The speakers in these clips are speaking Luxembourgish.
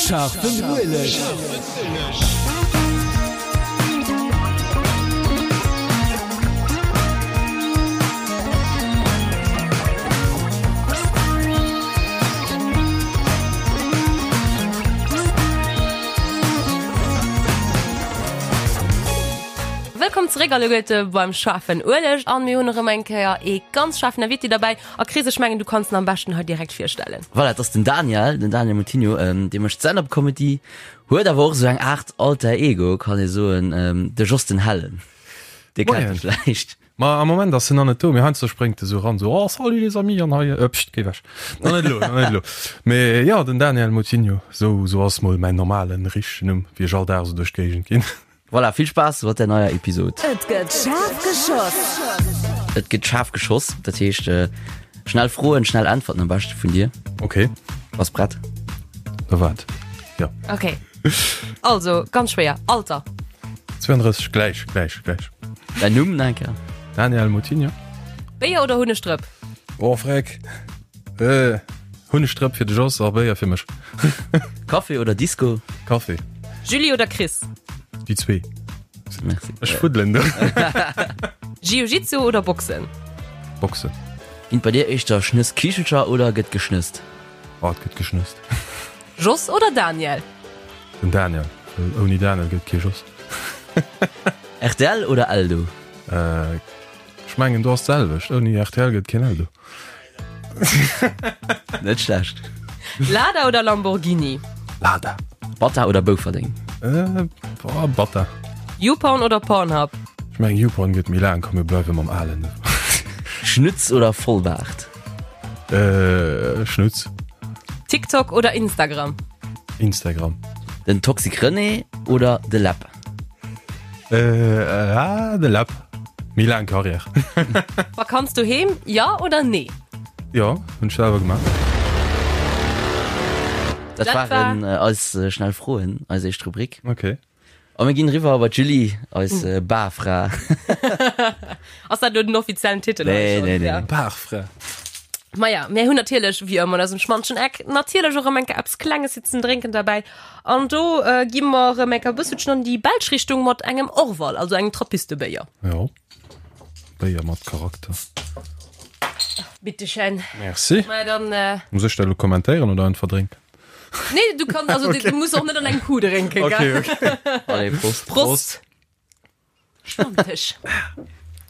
Scharfen Ueleg. Wëllkomm zeréck alleguerte beim Schaarfen Ueleg an mir hunn erëm eng Kéier ee ganz schaarfen Invité derbäi. A Chris, ech mengen du kanns en am beschten hei direkt virstellen. Voilà, et ass den Daniel, den Daniel Moutinho, dee mécht Stand-up-Comedy, huet awer och esou eng Aart Alter Ego, kann ee soen, de Jos den Hellen. Dee kennt e vläicht. Ma am Moment ass en nach net do, mee heiansdo spréngt e sou eran, sou, Oh, salut les amis, an hei, äh, pst, géi ewech. Nach net elo, nach net elo. Mee jo, den Daniel Moutinho, sou, sou ass mol mäin normalen, richtegen Numm, wéi ech all Dag sou duerch d'Géigend ginn. Voilà, vill Spaass mat der neier Episod. Et gëtt schaarf geschoss. Et gëtt schaarf geschoss, dat heescht schnell Froen, schnell Äntwerten am beschte vun dir. Okay. Bass prett? Na wat? Ja. Okay. Also, ganz schwéier. Alter? 32, gläich, gläich, gläich. Däin Numm nach eng Kéier? Daniel Moutinho. Béier oder Hunnegdrëpp? Oh, freck. Äh, Hunnegdrëpp fir de Jos a Béier fir mech. Café oder Disco? Café. Julie oder Chris? Déi zwee. Merci. Ech fuddelen do. Jiu-Jitsu oder Boxen? Boxen. Ginn bei dir éischter Schnësskichelcher oder gëtt geschnësst? Oh, et gëtt geschnësst. Jos oder Daniel? Den Daniel, well ouni Daniel gëtt kee Jos. Rtl oder Eldo? Äh, ech mengen do ass d'selwecht, ouni rtl gëtt keen Eldo. Net schlecht. Lada oder Lamborghini? Lada. Bata oder Bouferdeng? Äh, boah, Bata. YouPorn oder Pornhub? Ech mengen YouPorn gëtt méi laang, komm mir bleiwe mam alen. Schnutz oder Vollbaart? Äh, Schnutz. TikTok oder Instagram? Instagram. Den Toxic René oder de Läpp? Äh, ah, de Läpp. Méi laang Carrière. Vakanz doheem, ja oder nee? Jo, hunn ech selwer gemaach. Dat waren eis schnell Froen, eis éischt Rubrik. Okay. A mir ginn eriwwer bei d'Julie, eis Barfra. Ass dat elo den offiziellen Titel? Nee, nee, nee. Barfra. Maja, mir hunn natierlech, wéi ëmmer an eisem schmantschen Eck, natierlech och erëm eng Kéier eppes Klenges fir ze drénken derbäi. An do gi mer erëm eng Kéier e bësselchen an déi belsch Richtung mat engem Orval, also engem Trappistebéier. Jo, Béier mat Charakter. Bitteschön. Merci. Maja, dann. Muss ech dat elo kommentéieren oder einfach drénken? Nee, du kannst, also okay. du musst och net an eng Kuh drénken. Okay, okay. Allez, Prost. Prost. Stammtisch.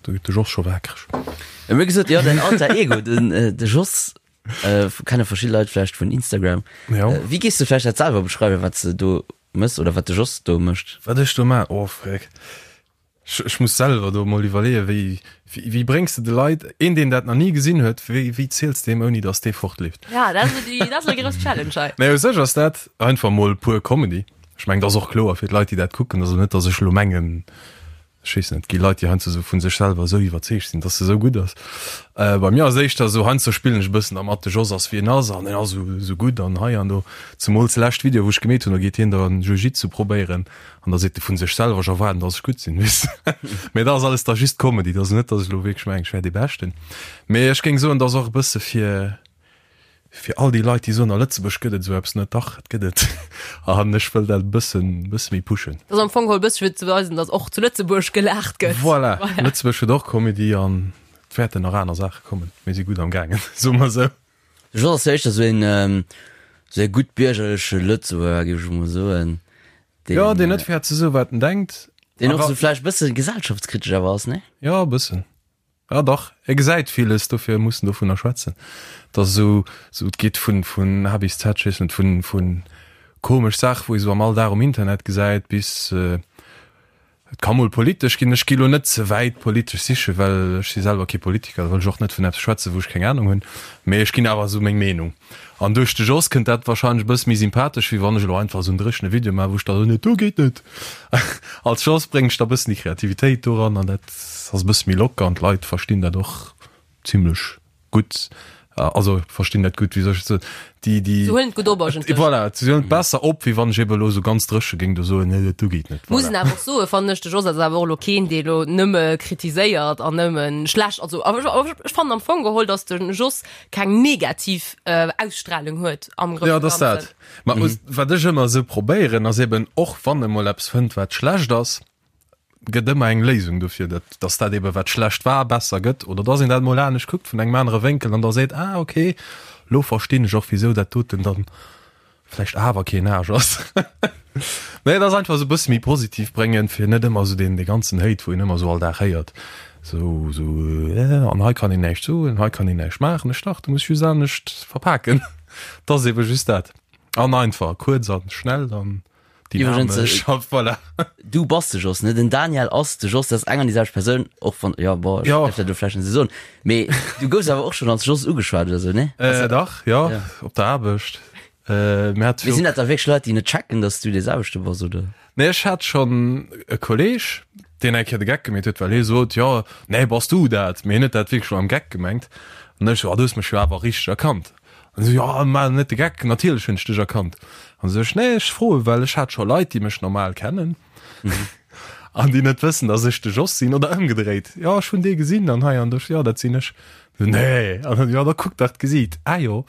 Do gëtt de Jos scho waakreg. Mir hu gesot, jo, däin Alter Ego, den, äh, de Jos, äh, kenne verschidde Leit vläicht vun Instagram. Ja. Äh, wéi gees du vläicht dat selwer beschreiwen, wat s de do mëss oder wat de Jos do mécht? Wat ech do maachen? Oh, freck. Ech muss selwer do emol iwwerleeën, wéi, wéi bréngs de de Leit, een deen dat nach ni gesinn huet, wéi, wéi ziels de deem ouni datt dee fortleeft? Ja, dat ass déi, dat ass elo déi grouss Challenge hei. Mä u sech ass dat einfach emol pur Comedy. Ech mengen, dat ass och kloer fir d'Leit, déi dat kucken. Also net, datt ech elo mengen, ech weess net, et gi Leit, déi heiansdo esou vu sech selwer esou iwwerzeegt sinn, datt se esou gutt ass. Bei mir ass et éischter esou, heiansdo spillen ech e bëssen dermat, de Jos ass wéi en ass an en ass esou, esou gutt an hei an do. Zemools de lescht Video, wou ech gemeet hunn, do geet hien da Jiu-Jitsu probéieren An da seet e vu sech selwer, ech erwaarden, dass ech gutt sinn, weess de. Mee dat ass alles da just Comedy, dat ass net, dass ech elo wierklech mengen, ech wär dee Beschten. Mee ech géing soen, dat ass och e bësse fir, fir all déi Leit, déi soen, a Lëtzebuerg gëtt et esou eppes net. Dach, et gëtt et. An ech wëll dat e bëssen, bësse méi pushen. Dat ass am Fong geholl e bësse fir ze weisen, dass och zu Lëtzebuerg gelaacht gëtt. Voilà, Lëtzebuerg huet och Comedy an et wäerten nach aner Saache kommen. Mir si gutt am gaangen, soe mer esou. De Jos ass jo éischter esou een, esou ee guttbiergerleche Lëtzebuerger, géif ech emol soen. Deen, jo, deen net fäert ze soen, wat en denkt. Deen och esou vläicht e bësse gesellschaftskritesch awer ass, nee? Jo, e bëssen. Ja, dach, e gesäit villes, dofir muss en dovunner schwätzen. Et ass esou, esou, et geet vun, vun A bis Z, ech weess net, vun, vun komesch Saache, wou ee sou am Alldag um Internet gesäit, bis, Et ka mol politesch ginn. Ech gi lo net ze wäit politesch sichen, well ech si selwer kee Politiker, da wëll ech och net vun eppes schwätzen, wou ech keng Anung hunn. Mee ech ginn awer esou meng Meenung. An duerch de Jos kënnt dat warscheinlech e bësse méi sympathesch, wéi wann ech elo einfach esou en dréchene Video maachen, wou ech da soen, dat do geet net. Als Jos bréngen ech da e bëssen déi Kreativitéit doran an dat ass e bësse méi locker an d'Leit verstinn dat och zimlech gutt. Also verstinn dat gutt, wéi soll ech et soen, déi, déi. Se huelen et gutt op eigentlech. Voilà, se huelen et besser op, wéi wann ech ebe elo esou ganz dréche géing do soen, nee, dat do geet net. Muss een awer och soen, fannen ech, de Jos ass awer och elo keen, dee elo nëmme kritiséiert an nëmme schlecht, also awer ech, ech fannen am Fong geholl, datt de Jos keng negativ Ausstrahlung huet am Grousse Ganzen. Jo, dat ass dat. Ma wat ech ëmmer esou probéieren, ass eben och wann e mol eppes fënnt, wat schlecht ass, gëtt ëmmer eng Léisung dofir, dat dass dat ebe wat schlecht war besser gëtt oder dass een dat mol anescht kuckt vun engem anere Wénkel an da seet, ah okay, lo verstinn ech och wisou dat doten dann vläicht awer keen Aarsch ass. Nee, et ass einfach esou e bësse méi positiv bréngen, fir net ëmmer esou deen dee ganzen Hate, wou een ëmmer esou all Dag héiert, esou esou an hei kann een näischt soen, hei kann een näischt maachen. Ech dach, du muss just anescht verpaken. Et ass ebe just dat. An einfach, kuerz an schnell an. Iwwregens, äh, voilà. Du bass de Jos, ne? Den Daniel ass de Jos, dat ass eng an déi selwecht Persoun, och wann, ja, bon, ech Ja. däerf dat elo vläicht net esou soen, mee du goufs awer och schonn als Jos ugeschwat oder sou, ne? Äh, dach, ja, Ja. op der Aarbecht. Äh, mir hat Mee sinn dat da wierklech Leit, déi net checken, dass du dee selwechte bass, oder? Nee, ech hat schonn e Kolleg, deen eng Kéier de Geck gemeet huet, well hie sot, jo, nee, bass du dat? Mee hien huet dat wierklech lo am Geck gemengt. An ech sou, ah, du hues mech jo awer richteg erkannt. An esou, jo, maach net de Geck, natierlech hunn ech dech erkannt. An esou ech, nee, ech froe well ech hat scho Leit, déi mech normal kennen an déi net wëssen, datt ech de Jos sinn oder ëmgedréit, jo, ech hunn dee gesinn an hei an do, jo, dat sinn ech. Esou, nee, an dann, jo, da kuck dach d'Gesiit, ah jo.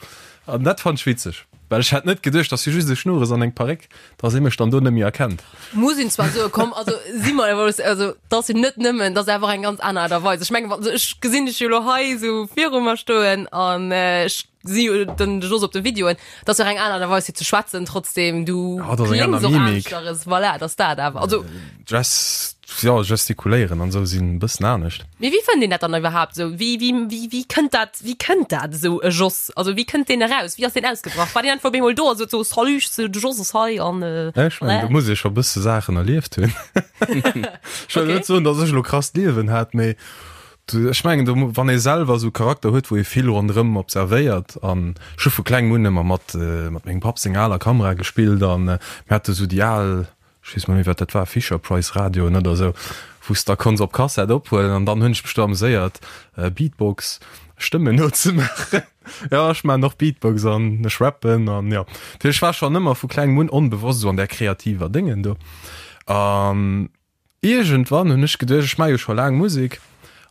An dat fand ech witzeg, well ech hat net geduecht, dass hie just e Schnurres an eng Paréck, dass ee mech dann do net méi erkennt. Muss een zwar soen, komm, also si mer emol, also dat ass jo net nëmmen, dat ass einfach eng ganz aner Aart a Weis. Ech mengen, also ech gesinn dech jo elo hei esou viru mer stoen an ech si jo den Jos op de Videoen, dat ass jo och eng aner Aart a Weis fir ze schwätzen, trotzdem du Ja, dat ass eng kléngs aner och Mimik. aneschteres, voilà, dat ass dat awer. Also Gest, jo, gestikuléieren an esou sinn e bëssen anescht. Mee wéi fënnt een dat dann iwwerhaapt esou? Wéi, wéi, wéi, wéi kënnt dat, wéi kënnt dat esou e Jos? Also wéi kënnt deen eraus? Wéi ass deen ausgebrach? War deen einfach op eemol do a sot sou, Salut, ech sinn de Jos ass hei an Ech mengen, do muss ee scho bësse Saachen erlieft hunn. Ech wëll net soen, datt ech elo krasst Liewen hat, mee ech mengen, do, wann ee selwer esou Charakter huet, wou ee vill ronderëm observéiert an ech hu vu klengem un ëmmer mat, mat mengem Papp seng aler Kamera gespillt an mir hate sou déi al, ech weess mol méi wat dat war, Fisher Price Radioen oder esou, wou s da konns op Kassett ophuelen an dann hunn ech mech do ameséiert Beatbox Stëmmen nozemaachen. Jo, ech maachen och Beatbox an ech rappen an jo. Dat heescht, ech war schonn ëmmer vu klengem un onbewosst esou an där kreativer Déngen do an Iergendwann hunn ech geduecht, ech maache jo scho laang Musek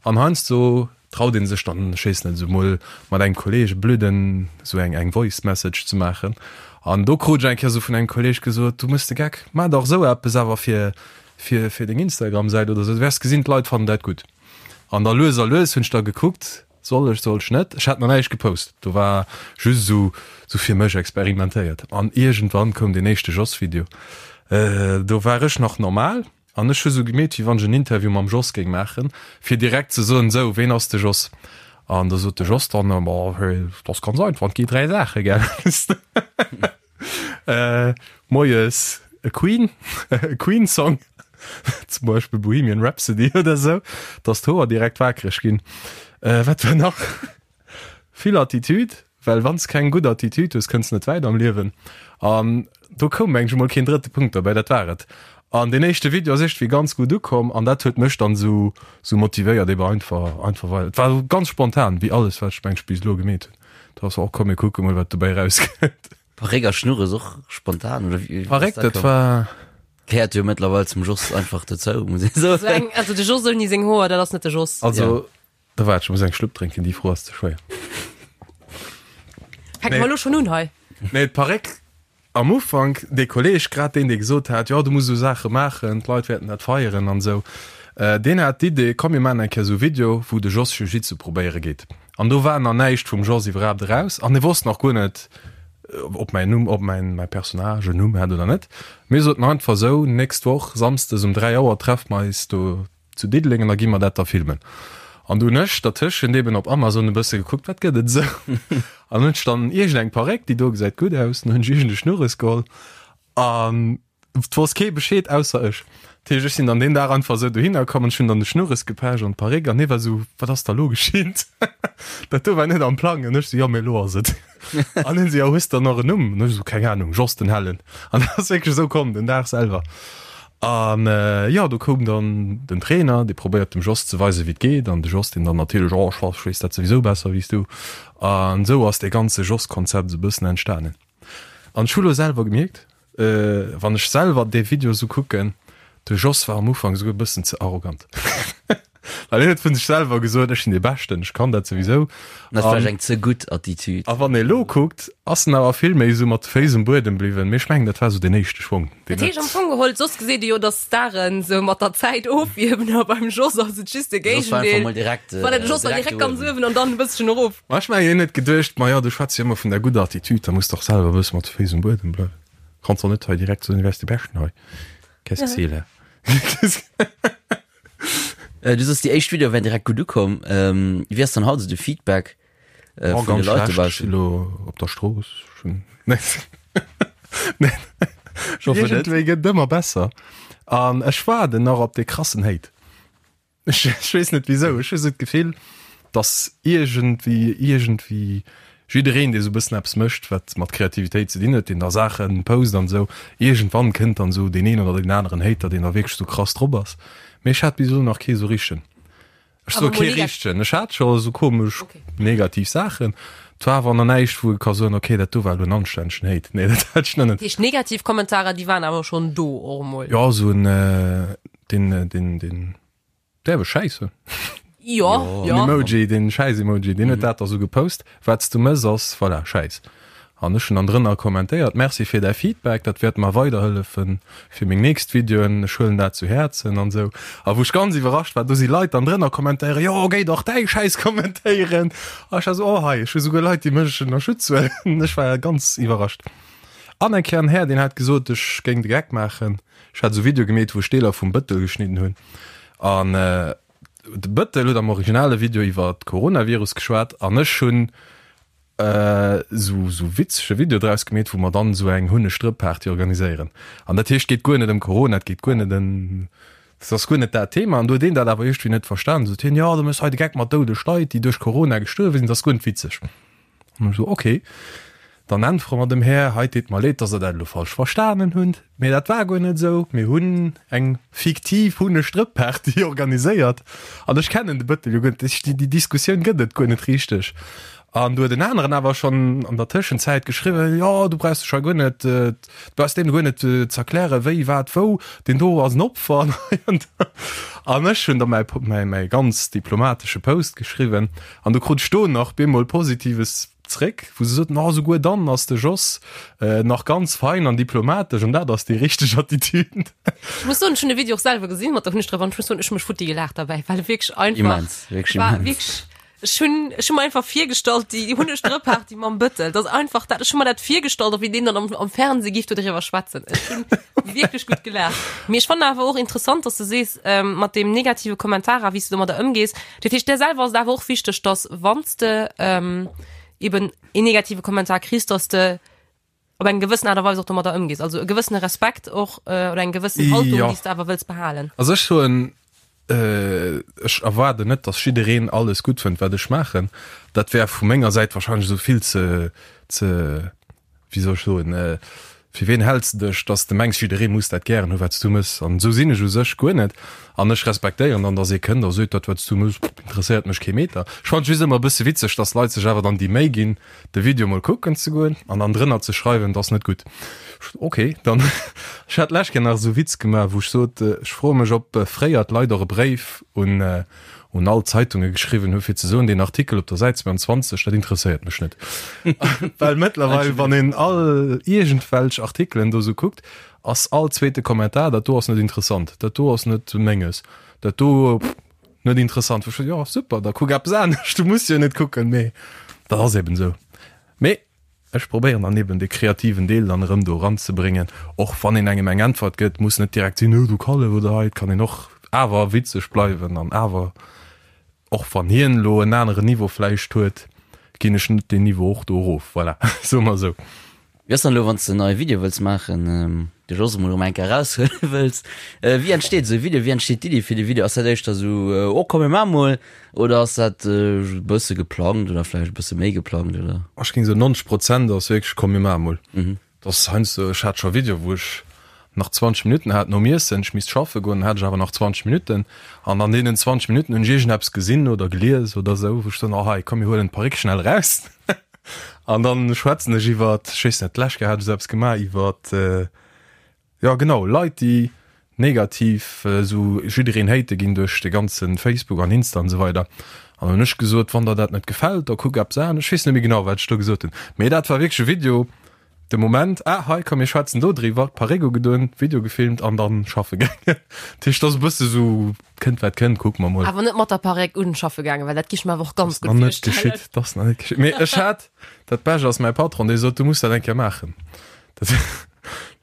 an heiansdo traut een sech dann, ech weess net, esou mol mat engem Kolleeg e blöden, esou eng eng Voice Message ze maachen. An do krut ech eng Kéier esou vun engem Kolleeg gesot, du méchs de Geck, maach dach esou eppes awer fir fir fir deng Instagram-Säit oder esou, du wäers gesinn, d'Leit fannen dat gutt. An da lues a lues hunn ech da gekuckt, Soll ech, soll ech net? Ech hat nach näischt gepost, do war just esou sou fir mech experimentéiert. An iergendwann koum deen éischte Jos-Video. Do war ech nach normal an ech hu sou gemeet, wéi wann ech en Interview mam Jos géing maachen, fir direkt ze soen, sou, ween ass de Jos? An da sot de Jos dann, ma dat ass ganz einfach, et gi 3 Saache, gell? Äh, moies e Queen, e Queen-Song, zum Beispill Bohemian Rhapsody oder sou, dass d'Hoer direkt waakreg ginn. Äh, wat war nach? Vill Attitude, well wann s keng gutt Attitude hues, kënns net wäit am Liewen. An do koum mengen ech emol keen drëtte Punkt derbäi, dat war et. An deen éischte Video ass iergendwéi ganz gutt ukomm an dat huet mech dann sou sou motivéiert ebe einfach einfach weider. Et war ganz spontan, wéi alles wat ech mengen ech bis elo gemeet hunn. Da ass och komm mir kucke mol wat dobäi rauskënnt. Paréck a Schnurres och spontan oder wéi ass Paréck dat dat komm? war. Gehéiert jo mëttlerweil zum Jos einfach dozou, muss ee soen. So eng, also de Jos ouni seng Hoer, dat ass net de Jos. Also da waart, ech muss eng Schlupp drénken, déi Fro ass ze schwéier. Fänke mer elo schonn un hei? Nee, d'Paréck Am Ufank, dee Kolleg, grad deen, dee gesot hat, jo, du muss esou Saache maachen, d'Leit wäerten dat feieren an esou, deen hat d'Idee, komm mir maachen eng Kéier esou e Video, wou de Jos Jiu-Jitsu probéiere geet. An do war nach näischt vum Jos iwwerhaapt eraus an hie wosst nach guer net, ob mäin Numm, ob mäin, mäi Personnage en Numm hat oder net. Mir soten einfach esou, Nächst Woch, samsdes um 3 Auer treffe mer eis do zu Diddeleng an da gi mer dat da filmen. An du hunn ech dertëschent eben op Amazon e bësse gekuckt, wat gëtt et esou? An hunn ech dann iergend eng Paréck, déi do gesäit gutt aus, an hunn ech iergend e Schnurres geholl an et wosst kee Bescheed ausser ech. Dat heescht, ech sinn dann deen Dag einfach esou dohinner komm an ech hunn dann de Schnurres gepecht an d'Paréck an hie war esou, wat ass da lo geschitt? Dat do war net am Plang. An ech esou, jo, mee elo ass et. An hien esou, jo, hues de dann nach en Numm? An ech esou, keng Anung, Jos den Hellen. An dat ass wierklech esou komm, den Dag selwer. An jo, do koum dann den Trainer, dee probéiert dem Jos ze weisen, wéi et geet. An de Jos, deen dann natierlech, Oh, ech weess dat souwisou besser wéi s du. An esou ass dee ganze Jos-Konzept esou e bëssen entstanen. An ech hu lo selwer gemierkt, wann ech selwer dee Video esou kucken, de Jos war am Ufank esouguer e bëssen ze arrogant. Well hien huet vun sech selwer gesot, ech sinn dee Beschten, ech kann dat souwisou. Dat ass vläicht eng ze gutt Attitude. A wann ee lo kuckt, ass en awer vill méi esou mat de Féiss um Buedem bliwwen. Mee ech mengen, dat war esou deen éischte Schwong, deen Dat heescht am Fong geholl, soss geseet ee jo, datt Staren esou mat der Zäit ofierwen, a beim Jos ass et just de Jos war einfach Géigendeel. mol direkt, Voilà, de Jos war direkt direkt ganz uewen an dann e bësschen erof. Ma ech mengen, hien huet geduecht, Ma jo, du schwätz jo ëmmer vun der gudder Attitude, da muss de och selwer e bësse mat de Féiss um Buedem bleiwen. Kanns och net hei direkt soen, du wäers dee Beschten hei. Qu'est-ce que c'est là? Äh, du sos déi éischt Video wären direkt gutt ukomm. Ähm, wéi ass dann haut esou de Feedback äh, oh, vun de Leit dobaussen? Lo op der Strooss schon. Nee. nee. Iergendwéi gëtt ëmmer besser. An ech waarden nach op dee krassen Hate. Ech, ech weess net wieso. Ech hu sou d'Gefill, dass iergendwéi, iergendwéi Jiddereen, dee sou e bëssen eppes mécht, wat mat Kreativitéit ze dinn huet, deen da Saache post an esou, iergendwann kënnt dann esou deen een oder deen aneren Hater, deen da wierklech esou krass drop ass. Mee ech hat bis elo nach kee sou richtegen. Ech soe kee richtegen, ech hat scho sou komesch negativ Saachen, et war awer nach näischt, wou ee ka soen, okay, dat do war elo en anstännegen Hate. Nee, dat hat ech nach net. Dat heescht, negativ Kommentarer, déi waren awer schonn do och emol? Jo, esou en, deen, deen, deen. Däerf ech Schäiss soen? Jo, jo. Den Emoji, den Schäiss-Emoji, deen huet dat da sou gepost. Wat s du mëss ass, voilà, Schäiss. An ech hunn dann drënner kommentéiert, Merci fir däi Feedback, dat wäert mer weiderhëllefen fir meng nächst Videoen, ech huelen dat zu Häerzen an sou. A wou ech ganz iwwerrascht war, do si Leit dann drënner kommentéieren, Jo, géi dach däi Schäiss kommentéieren. A ech war sou, Oh hei, ech hu souguer Leit, déi mech ënnerschütz huelen. Ech war ganz iwwerrascht. An eng Kéier en Här, deen hat gesot, ech géing de Geck maachen. Ech hat esou Video gemeet wou ech Deeler vum Bëttel geschnidden hunn an de Bëttel huet am originale Video iwwer Coronavirus geschwat an ech hunn esou esou witzege Video draus gemeet wou mer dann esou eng Hunneg-Drëpp-Party organiséieren an dat heescht geet guer net ëm Corona, et geet guer net ëm, et ass guer net dat Thema an do huet een dat awer iergendwéi net verstan, sot hien, jo du méchs hei de Geck mat doudeg Leit déi duerch Corona gestuerwe sinn, dat ass guer net witzeg. An ech esou, ok, dann äntwere mer dem Här, hei, deet mer leed, dass Der dat elo falsch verstanen hutt, mee dat war guer net esou, mir hunn eng fiktiv Hunnestrëpp-Party organiséiert an ech kennen de Bëttel jo guer net, déi Diskussioun gëtt et guer net richteg. An du huet en aneren awer schonn an der Tëschenzäit geschriwwen, jo, du brauchs dech hei guer net, du brauchs deem guer net ze erklären, wéi, wat, wou, deen do ass en Opfer an hei an do. An ech hunn da mäi, mäi, mäi ganz diplomatesche Post geschriwwen. An du krut ech do nach bemol Positives zréck, wou se soten, oh, souguer dann ass de Jos nach ganz fein an diplomatesch an dat ass déi richteg Attitude. Ech muss soen, ech hunn de Video och selwer gesinn mat der Hunnegdrëpp an ech muss soen, ech hu mech futti gelaacht derbäi, well e wierklech einfach Immens, wierklech war immens. wierklech, ech hunn, ech hu mer einfach virgestallt, déi Hunnegdrëpp-Party mam Bëttel, dat ass einfach dat, ech hu mer dat virgestallt, och wéi deen dann am, am Fernseh giff do driwwer schwätzen. Ech hunn wierklech gutt gelaacht. Mee ech fannen awer och interessant, dass de sees, mat deem negative Kommentar a wéi s de domadder ëmgees, Dat heescht, där selwer ass et awer och wichteg, dass wann s de ähm, eben een negative Kommentar kriss, dass de op eng gewëssen Aart a Weis och domadder ëmgees. Also e gewëssene Respekt och äh, oder eng gewëssen Haltung, Ja. déi s de awer wëlls behalen. Also ech soen, äh, ech erwaarden net, dass jiddereen alles gutt fënnt, wat ech maachen. Dat wär vu menger Säit wahrscheinlech esou vill ze, ze wéi soll ech soen, fir ween häls de dech, dass de mengs, jidderee muss dat gären hu wat s du mëss. An esou sinn ech u sech guer net. An ech respektéieren dann, dass ee kënnt a seet, dat wat s du mëss, interesséiert mech kee Meter. Ech fannen et just ëmmer e bësse witzeg, dass Leit sech awer dann déi Méi ginn, de Video mol kucken ze goen an dann drënner ze schreiwen, et ass net gutt. Ok, dann, ech hat d'lescht Kéier nach esou e Witz gemaach, wou ech sot, ech froe mech, ob fréier d'Leit och e Bréif un un all d'Zeitunge geschriwwen hu fir ze soen, deen Artikel op der Säit 22, dat interesséiert mech net. Well mëttlerweil, wann een all iergendwelch Artikelen do sou kuckt, ass all zweete Kommentar, dat do ass net interessant, dat do ass net menges, dat do net interessant. Wou ech jo super, da kuck eppes anescht, du muss jo net kucken, mee dat ass eben esou. Mee Ech probéieren dann eben de kreativen Deel dann erëm do eranzebréngen. Och wann een engem eng Äntwert gëtt, muss net direkt sinn, oh du Kallef oder hei. Et kann een och awer witzeg bleiwen an awer, och wann hien elo en aneren Niveau vläicht huet, ginn ech net deen Niveau och do erof. Voilà, soe mer esou. Wéi ass dann elo, wann s de en neie Video wëlls maachen, de Jos emol erëm eng Kéier eraushuele wëlls, wéi entsteet esou e Video, wéi entsteet d'Iddi fir de Video? Ass dat éischter esou, oh komm mir maache mol, oder ass dat e bësse geplangt oder vläicht e bësse méi geplangt, oder? Ech géing soen 90 Prozent ass wierklech komm mir maache mol. Dat ass heiansdo, ech hat scho Video wou ech nach 20 Minutten hat nom Iessen, ech misst schaffe goen, dann hat ech awer nach 20 Minutten an an deenen 20 Minutten hunn ech iergendeppes gesinn oder gelies oder esou, wou ech soen, oh hei, komm mir huelen d'Paréck schnell eraus an dann schwätzen ech iwwert, ech weess net, d'lescht Kéier hat ech esou eppes gemaach iwwert, jo genau, Leit déi negativ esou jiddereen hate ginn duerch de ganze Facebook an Insta an esou weider an dann hunn ech gesot, wann der dat net gefält, da kuck eppes anescht, ech weess net méi genau wat ech do gesot hunn, mee dat war wierklech e Video, De Moment, ah hei komm mir schwätzen do driwwer, Paréck ugedoen, Video gefilmt an dann schaffe gaangen. Dat heescht, ass e bësse sou, kënnt wat kënnt, kucke mer mol. Awer net mat der Paréck un schaffe gaangen, well dat gi ech mer awer och ganz gutt virstellen. Geschitt, dat ass nach net geschitt. Mee ech hat, dat Bescht ass mäi Patron, dee sot, du muss dat eng Kéier maachen. Dat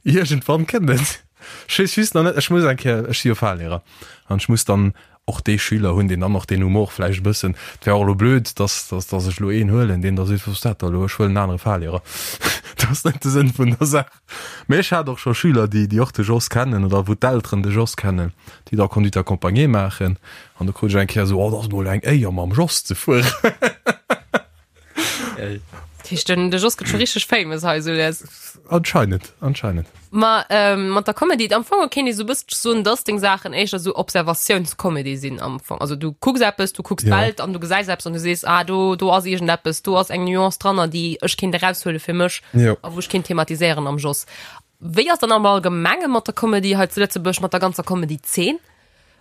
iergendwann kënnt et. Ech weess just nach net, ech muss eng Kéier, ech si jo Fahrlehrer an ech muss dann och dee Schüler hunn, deen dann och deen Humor vläicht e bëssen, et wär och elo blöd, dass, dass, dass ech elo een huelen, deen da seet, wat ass dat da elo, ech huelen en anere Fahrlehrer. Dat ass net de Sënn vun der Saach. Mee ech hat och scho Schüler, déi, déi och de Jos kennen oder wou d'Elteren de Jos kennen, déi da Conduite accompagnée maachen an do krut ech eng Kéier esou, oh, dat ass mol eng Éier mam Jos ze fueren. Dat heescht, den, de Jos gëtt scho richteg famous hei, sou les. Anscheinend, anscheinend. Ma ähm, mat der Comedy, am Fong kéint ee sou bësselche soen, dass deng Saachen éischter sou Observatiounscomedy sinn am Fong. Also du kucks eppes, du kucks d'Welt an du gesäis eppes an du sees, ah do, do ass iergendeppes, do ass eng Nuance dranner, déi ech kéint eraushuele fir mech Jo. a wou ech kéint thematiséieren am Jos. Wéi ass dann am Allgemenge mat der Comedy hei zu Lëtzebuerg, mat der ganzer Comedy-Zeen?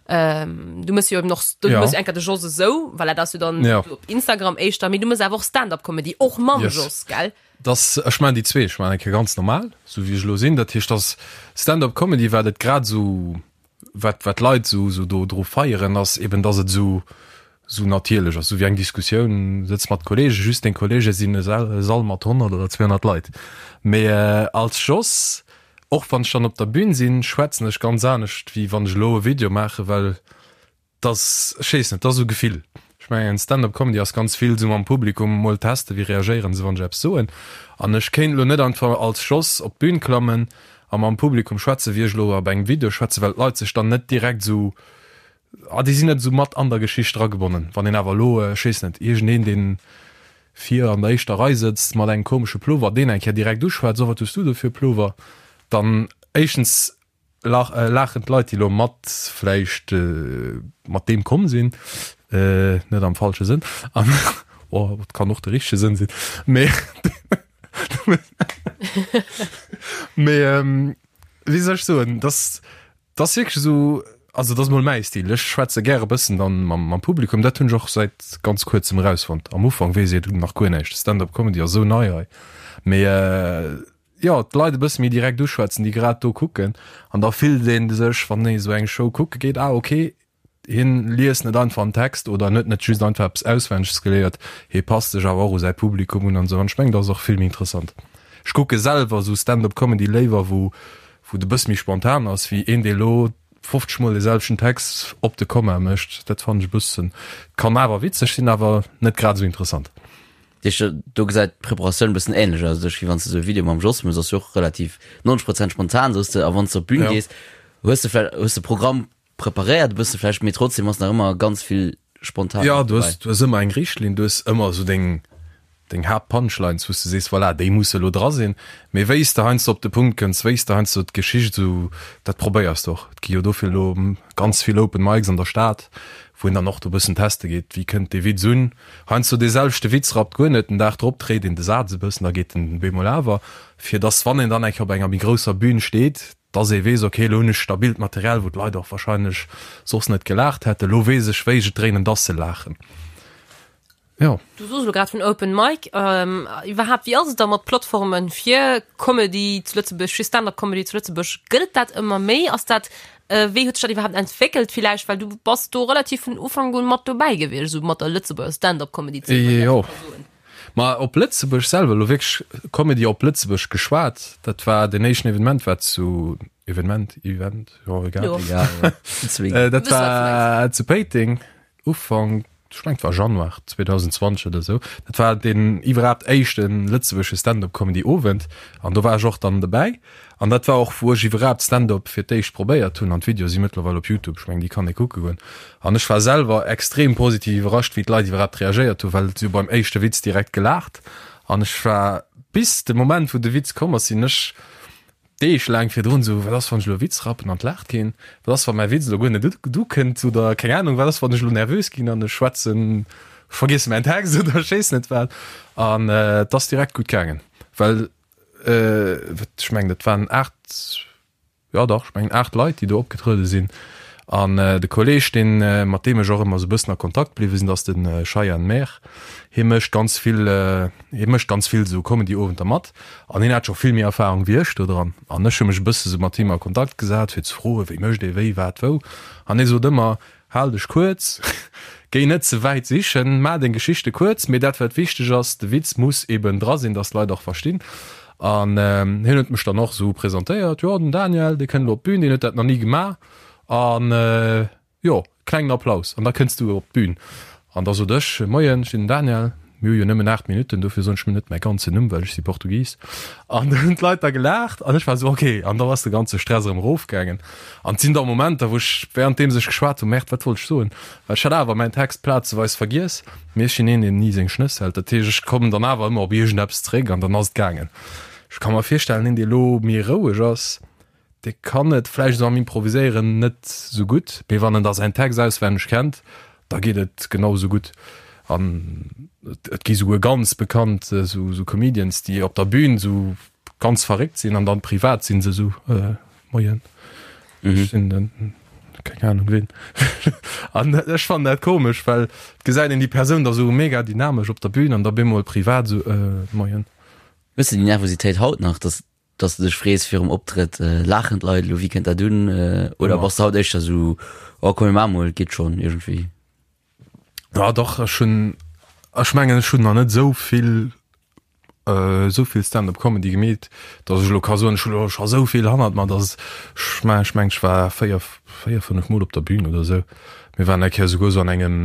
Ähm, du mëss jo eben och, du Ja. mëss enker de Jos esou, well dat ass jo dann Ja. op Instagram éischter, mee du mëss awer och Stand-up-Comedy, och mam Yes. Jos, gell? Dass, ech maachen déi zwee, ech maachen eng Kéier ganz normal, sou wéi ech elo sinn. Dat heescht, dass Stand-up-Comedy, wat et grad esou, wat, wat d'Leit esou, esou do dru feieren, ass eben, dass et esou, esou natierlech ass, esou wéi eng Diskussioun, sëtz mat Kollegen, just deng Kollege sinn e Sall, e Sall mat 100 oder 200 Leit. Mee als Jos, Och wann ech dann op der Bühn sinn, schwätzen ech ganz anescht, wéi wann ech elo e Video maachen, well dass, ech weess net, dat ass esou Gefill. Ech mengen, Stand-up Comedy ass ganz vill esou mam Publikum mol testen, wéi reagéieren se, wann ech eppes soen. An ech kéint elo net einfach als Jos op d'Bühn klammen a mam Publikum schwätzen, wéi ech elo op engem Video schwätzen, well d'Leit sech dann net direkt esou, ah, déi sinn net esou mat an der Geschicht dragebonnen. Wann een awer elo, ech weess net, iergendeen, deen vir an der éischter Rei sëtzt mat engem komesche Plover, deen eng Kéier direkt uschwätzt, oh wat hues du do fir e Plover, dann éischtens laachen d'Leit, déi elo mat vläicht mat deem komm sinn, net am falsche Sënn, an oh et kann och de richtege Sënn sinn, mee mee wéi soll ech soen, dass 't ass wierklech esou, also et ass mol mäi Stil, ech schwätze gäre bëssen dann mam mam Publikum, dat hunn ech och säit ganz kuerzem erausfonnt. Am Ufank weess ee nach guer näischt, Stand-up Comedy ass esou nei hei, mee jo d'Leit e bësse méi direkt uschwätzen, déi grad do kucken an da fillt ee sech, wann ee esou eng Show kucke geet, ah ok, Hien liest net einfach en Text oder en huet net just einfach eppes auswenneg geléiert, hie passt sech awer och u säi Publikum un an esou. An ech mengen, dat ass och vill méi interessant. Ech kucke selwer esou Stand-up Comedy léiwer, wou wou et e bësse méi spontan ass, wéi een, dee elo 50 mol dee selwechten Text op de Komma mécht. Dat fannen ech e bëssen, kann awer witzeg sinn, awer net grad esou interessant. Dat heescht, do gesäit d'Preparatioun e bëssen ähnlech aus, wéi wann s de esou e Video mam Jos méchs, ass jo och relativ 90 Prozent spontan, soos de, a wann s de op d'Bün gees, hues de vläicht, hues de Programm Preparéiert e bësse vläicht, mee trotzdem ass nach ëmmer ganz vill spontan Ja, du hues, du hues ëmmer eng Richtlinn, du hues ëmmer esou deng, deng Haaptpunchlines, wou s de sees, voilà, déi musse elo dra sinn. Mee wéi s de heiansdo op de Punkt kënns, wéi s de heiansdo d'Geschicht esou, dat probéiers de och. Et gi jo dofir elo ganz vill Open Mics an der Stad, wou een dann och do e bëssen teste geet, wéi kënnt dee Witz un. Heiansdo dee selwechte Witz rappt guer net, den Dag drop dréit een de Saz e bëssen, da geet en bemol awer, fir dass, wann een dann eng Kéier op enger méi grousser Bün steet, dass ee weess, ok, elo hunn ech stabilt Material, wou d'Leit och wahrscheinlech soss net gelaacht hätten, elo weess ech, wéi ech et dréinen, dass se laachen. Jo. Du soos elo grad vun Open Mic. Iwwerhaapt, wéi ass et da mat Plattforme fir Comedy zu Lëtzebuerg, fir Stand-up Comedy zu Lëtzebuerg? Gëtt et dat ëmmer méi? Ass dat, wéi huet sech dat iwwerhaapt entwéckelt villäicht? Well du bass do relativ vun Ufank un mat dobäi gewiescht, esou mat der Lëtzebuerger Stand-up Comedy Zeen, wann Jo. ech dat esou soen. Ma op Lëtzebuerg selwer, elo wierklech Comedy op Lëtzebuerg geschwat, dat war deen éischten Evenement war zu, Evenement, Event, jo egal. Jo. Egal, ja. Zwee. Äh, dat Wëss, wat du war zu Péiteng, Ufank, ech mengen et war Januar 2020 oder esou. Dat war deen iwwerhaapt éischte lëtzebuergesche Stand-up-Comedy-Owend an do war ech och dann dobäi. An dat war och, wou ech iwwerhaapt Stand-up fir d'éischt probéiert hunn. An d'Videoe si mëttlerweil op Youtube, ech mengen, déi kann ee kucke goen. An ech war selwer extrem positiv iwwerrascht, wéi d'Leit iwwerhaapt reagéiert hunn, well si hu beim éischte Witz direkt gelaacht. An ech war bis de Moment, wou de Witz komm ass, sinn ech. Deeg laang virdrun esou, wat ass wann ech elo e Witz rappen an et laacht keen? Wat ass wa mäi Witz elo guer net ukënnt oder keng Anung, wat ass wann ech elo nervös ginn an ech schwätzen, ech vergiesse mäin Text oder ech weess net wat. An et ass direkt gutt gaangen, well ech mengen dat waren 8, jo dach, ech mengen 8 Leit déi do opgetruede sinn. An de Kolleeg, deen, mat deem ech och ëmmer esou e bëssen a Kontakt bliwwe sinn, dat ass de Shayan Mehr. Hie mécht ganz vill, hie mécht ganz vill esou Comedy-Owenter mat an hien hat scho vill méi Erfahrung wéi ech do dran. An ech hu mech e bësse sou mat him a Kontakt gesat, fir ze froen, wéi mécht ee wéi, wat, wou. An hie sot ëmmer, Hal dech kuerz, géi net ze wäit sichen, maach deng Geschichte kuerz, mee dat wat wichteg ass, de Witz muss eben dra sinn, dass d'Leit och verstinn. An hien huet mech dann och esou presentéiert, Jo, den Daniel, dee kënnt elo op d'Bün, deen huet dat nach ni gemaach an jo, klengen Applaus an da kënns du op d'Bün. An da sot ech, Moien, ech sinn den Daniel, mir hu jo nëmmen 8 Minutten, dofir soen ech mir net mäi ganzen Numm, well ech si Portugis. An da hunn d'Leit da gelaacht an ech war esou, ok, an da ass de ganze Stress erëm erofgaangen. An et sinn da Momenter, wou ech wärenddeems ech geschwat hunn, Merde, wat wollt ech soen? Well ech hat awer mäin Text plazeweis vergiess, mee ech sinn een, deen ni seng Schnëss hält, dat heescht, ech kommen dann awer ëmmer op iergendeppes zeréck an dann ass et gaangen. Ech ka mer virstellen, een, dee elo méi roueg ass, Dee kann et vläicht esou am Improviséieren net esou gutt, mee wann en da säin Text auswenneg kennt, da geet et genau esou gutt. An et gi souguer ganz bekannt esou Comedians, déi op der Bühn esou ganz verréckt sinn an dann privat sinn se esou, Moien, ech sinn den keng Ahnung ween. An ech fannen dat komesch, well et gesäit een déi Persoun da esou mega dynamesch op der Bühn an da bemol privat esou, Moien. Hues de déi Nervositéit haut nach, dass dass de dech frees virum Optrëtt, laachen d'Leit elo, wéi kënnt dat un? Oder bass de haut éischter esou, oh komm mir maache mol, et geet schonn iergendwéi? Ja dach, ech hunn, ech mengen ech hunn nach net esou vill, esou vill Stand-up Comedy gemeet, dass ech elo ka soen, ech hunn elo scho esou vill hannert mer, dass ech mengen, ech mengen ech war 4, 4, 5 mol op der Bühn oder esou. Mir waren eng Kéier esouguer esou an engem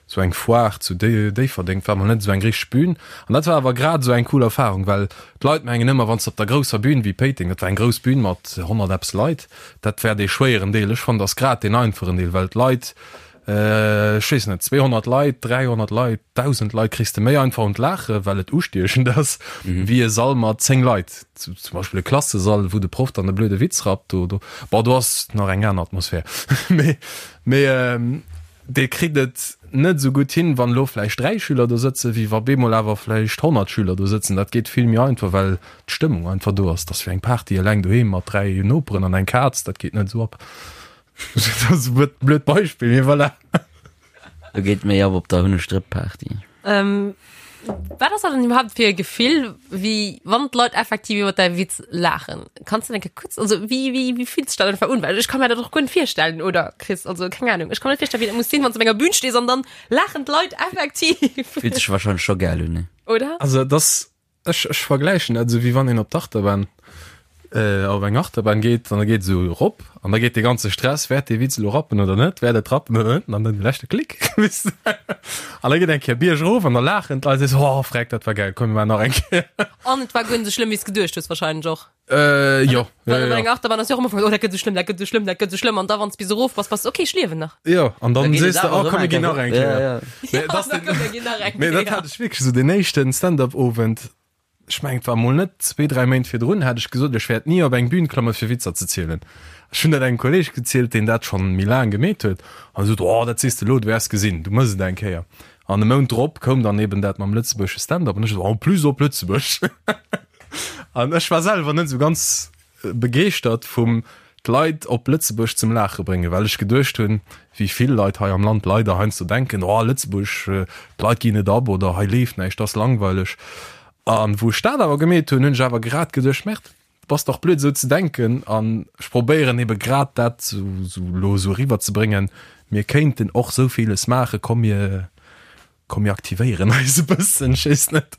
Sou eng Foire zu Déifferdeng, war mol net esou eng richteg Bühn. An dat war awer grad esou eng cool Erfahrung, well d'Leit mengen ëmmer, wann s de op der grousser Bühn wéi Péiteng, dat war eng grouss Bühn mat 100 eppes Leit, dat wär dee schwéieren Deel. Ech fannen, dat ass grad deen einfachen Deel, well d'Leit, ech weess net, 200 Leit, 300 Leit, 1.000 Leit kriss de méi einfach un d'Laache, well et ustiechend ass, wéi e Sall mat 10 Leit. Zum Beispill e Klassesall, wou de Proff dann e blöde Witz rappt, do, do, bon, do ass nach eng aner Atmosphär. Mee, mee. Dee kritt et net esou gutt hin, wann elo vläicht 3 Schüler do sëtzen, wéi wa bemol awer vläicht 100 Schüler do sëtzen. Dat geet vill méi einfach, well d'Stëmmung einfach do ass. Dat ass wéi eng Party eleng doheem mat 3 Noperen an eng Kaz, dat geet net esou ab. Dat ass e blöd Beispill, mee voilà. Do geet méi ab op der Hunnestrëpp-Party. Wat ass dat dann iwwerhaapt fir e Gefill, wéi wann d'Leit effektiv iwwer däi Witz laachen? Kanns du enke kuerz, also wéi, wéi, wéi fillt sech dat einfach un? Well ech ka mir dat och guer net virstellen, oder Chris? Also keng Ahnung, ech ka mir net virstellen, wéi dat muss sinn, wann s du op enger Bühn stees an dann laachen d'Leit effektiv. Fillt sech wahrscheinlech scho gäil un, ne? Oder? Also et ass, ech, ech vergläichen dat esou, wéi wann een op d'Achterbahn, op eng Achterbahn geet an da geet esou erop an da geet dee ganze Stress, wäert dee Witz elo rappen oder net, wäert et rappen oder net, an dann de leschte Klick, weess de, an da geet eng Kéier bierg erof an da laachen d'Leit, sees, oh freck, dat war gäil, komm mir maachen nach eng Kéier. An et war guer net esou schlëmm, wéi s geduecht hues wahrscheinlech och. Äh, jo, jo, jo. Bei enger Achterbahn ass jo och am Ufank, oh dat gëtt esou schlëmm, dat gëtt esou schlëmm, dat gëtt esou schlëmm, an da wann s bis erof bass, bass de, okay, ech liewen nach. Jo, an dann Da geet et sees de, awer oh erëm komm mir eng ginn nach Kéier eng erop. Kéier. Ja, ja. Mee Ja, dat ass da den, komm mir ginn nach eng mee dat Kéier. hat ech wierklech esou, deen éischten Stand-up-Owend, Ech mengen, et war mol net zwee, dräi Méint virdrun, hat ech gesot, ech wäert ni op eng Bühn klamme fir Witzer ze zielen. Ech hunn dat engem Kolleeg gezielt, deen dat schonn méi laang gemeet huet, an e sot, Oh, dat sees de elo, du wäers gesinn, du mëss et eng Kéier. An e Mount drop koum dann eben dat mam lëtzebuergesche Stand-up an ech esou, En plus op Lëtzebuerg! An ech war selwer net esou ganz begeeschtert vum d'Leit op Lëtzebuerg zum Laache bréngen, well ech geduecht hunn, wéi vill Leit hei am Land leider heiansdo denken, oh Lëtzebuerg, d'Leit ginn net ab oder hei leeft näischt, ass langweileg. An wou ech dat awer gemeet hunn, hunn ech awer grad geduecht, Merde, du bass dach blöd esou ze denken. An ech probéieren ebe grad dat esou elo esou eriwwerzebréngen, mir kéinten och esou villes maachen, komm mir Komm mir aktivéieren eis e bëssen, ech weess net.